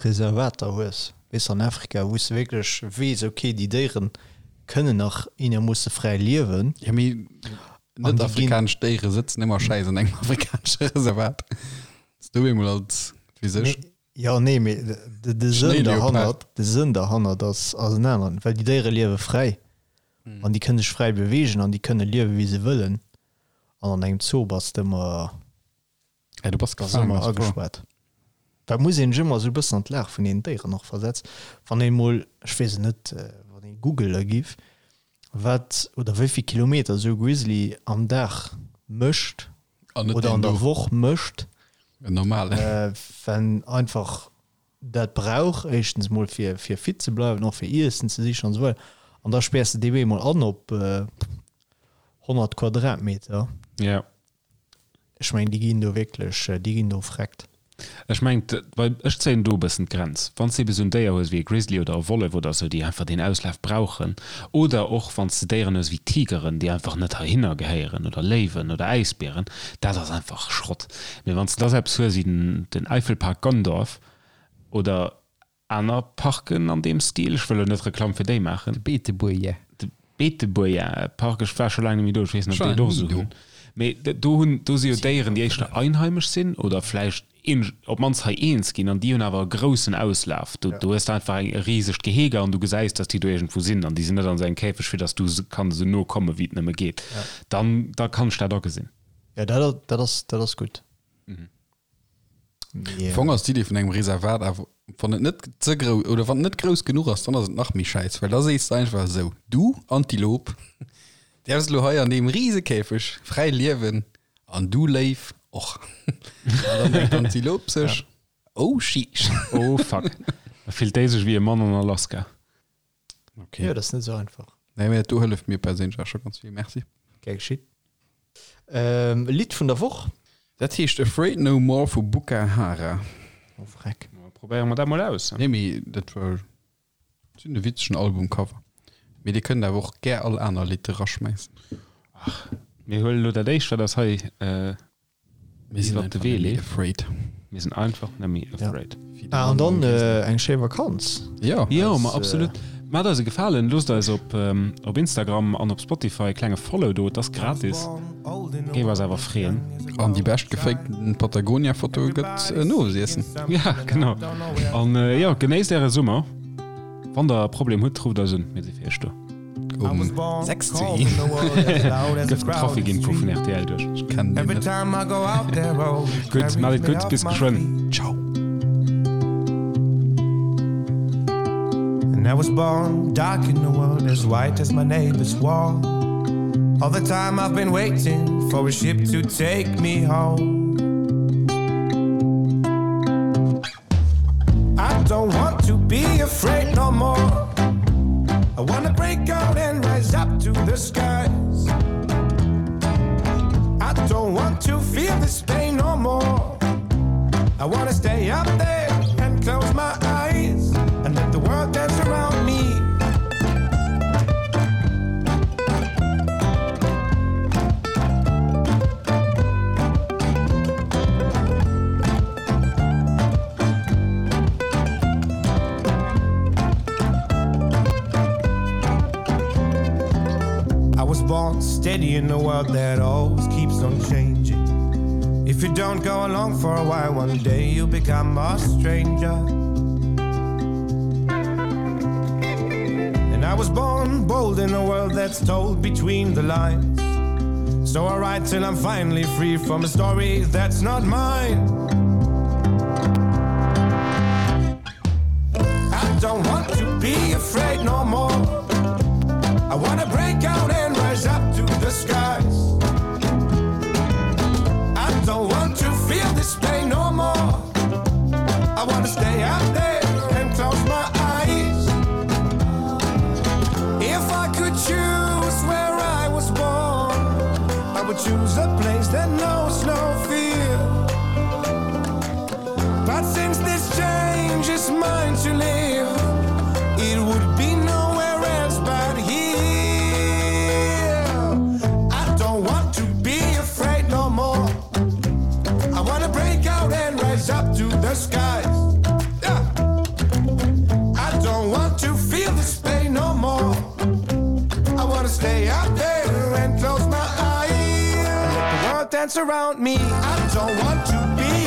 B: Reservater hues, weess an Afrika, wou s de wierklech weess, okay, déi Déieren kënnen nach eenermoosse fräi liewen.
A: Ja, mee
B: An
A: net
B: déi ginn.
A: afrikanesch Déiere sëtzen ëmmer schäiss an engem afrikanesche Reservat. S du eemol als, weess ech.
B: Nee, jo, nee, mee de, de Sënn derhannert, de Sënn derhannert ass, ass en aneren, well déi Déiere liewe fräi an déi kënne sech fräi beweegen an déi kënne liewe wéi se wëllen. An an engem Zoo bass de ëmmer,
A: Ja, du bass
B: bass
A: gefaangen,
B: ëmmer
A: ass wahr.
B: agespaart. Well et muss een sech ëmmer esou e bëssen an d'Lag vun deenen Déieren och versetzen. Wann een emol, ech weess et net, wann ee Google ergiff, wat oder wéi vill Kilometer esou e Grizzly am Dag mécht
A: An net
B: oder
A: deen
B: an der
A: do.
B: Woch mécht,
A: En normalen.
B: wenn einfach dat brauch, éischtens mol fir fir fit ze bleiwen, och fir Iessen ze sichen an esou weider. An da späers de dee bemol an op 100 Quadratmeter.
C: Ja.
B: Ech mengen, déi ginn do wierklech, déi ginn do vreckt.
C: Ech mengen, well ech zéien do e bëssen d'Grenz. Wann s de ebe sou en Déier hues wéi e Grizzly oder e Wollef oder esou, déi einfach deen Auslaf brauchen, oder och wann s de Déieren hues wéi Tigeren, déi einfach net heihinner gehéieren, oder Léiwen oder Äisbieren, dat ass einfach Schrott. Mee wann s de da sou eppes hues wéi den Eifelpark Gondorf oder Aner Parken an deem Stil, ech wëll elo net Reklamm fir déi maachen.
A: De Beetebuerger.
C: De Beetebuerger Park, ech war scho laang net méi do, ech weess net, ob déi et och esou hunn. Mee do hunn, do si jo Déieren, déi éischter einheimesch sinn oder vläicht een, op d'mannst hei eens ginn an déi hunn awer e groussen Auslaf. Do, do hues de einfach eng, e risegt Gehege an du gesäis, datt déi do iergendwou sinn an déi sinn net an esou engem Käfeg, fir datt du se kann esou no komme wéi et nëmme geet. Dann, da kann ech dat agesinn.
B: Jo, dat, dat ass, dat ass gutt.
A: Am Fong ass d'Idee vun engem Reservat awer, wann et net ze grouss oder wann et net grouss genuch ass, dann ass et nach méi schäiss, well da sees de einfach esou, du Antilop däerfs elo hei an deem rise Käfeg fräi liewen an du Léiw och. An dann denkt d'Antilop sech, oh sheesh.
C: Oh fuck. Da fillt déi sech wéi e Mann an Alaska.
A: Okay.
B: Jo, dat ass net esou einfach.
A: Nee, mee dat do hëlleft mir perséinlech awer scho ganz vill. Merci.
B: Gär geschitt. Ähm, Lidd vun der Woch?
A: Dat heescht Afraid No More vu Buka Hara.
B: Oh, vreck.
C: Probéiere mer dat mol aus.
A: Nee, mee dat war sinn e witzegen Albumcover. Mee dir kënnt awer och gär all aner Lidd eraschmäissen.
C: Ach, mir huelen elo dat éischt, wat eis hei
A: Mir sinn
C: iwwert de
A: einfach
C: Wee
A: net méi
C: leeft.
A: afraid.
C: Mir sinn einfach net méi afraid.
B: Ah, an dann eng schéi Vakanz.
A: Jo.
C: Jo, ma absolut. Maacht eis e Gefalen, loosst eis op op Instagram an op Spotify e klenge Follow do, et ass gratis, géif eis awer freeën.
A: An déi bescht gefakten Patagonia-Foto gëtt en Owesiessen.
C: Ja, genau. An jo, genéisst äre Summer. Wann der e Problem hutt, rufft eis un, mir si fir iech do.
A: Um 6 zu 1.
C: Gëff den Trafic-Info vun rtl duerch.
A: Ech kennen deen net.
C: Gutt, maacht et gutt, bis geschwënn.
A: Ciao.
G: And I was born dark in the world as white as my neighbor's wall. All the time I've been waiting for a ship to take me home. I don't want to be afraid no more. I wanna break out and rise up to the skies. I don't want to feel this pain no more. I wanna stay up there and close my eyes and let the world dance around me. I was born steady in a world that always keeps on changing. If you don't go along for a while, one day you'll become a stranger. And I was born bold in a world that's told between the lines. So I write till I'm finally free from a story that's not mine. I don't want to be afraid no more. I wanna break out and rise up to the skies. I don't want to feel this pain no more. I wanna stay out there and close my eyes. If I could choose where I was born, I would choose a place that knows no fear. But since this change is mine to live, it would be nowhere else but here. dance around me. I don't want to be.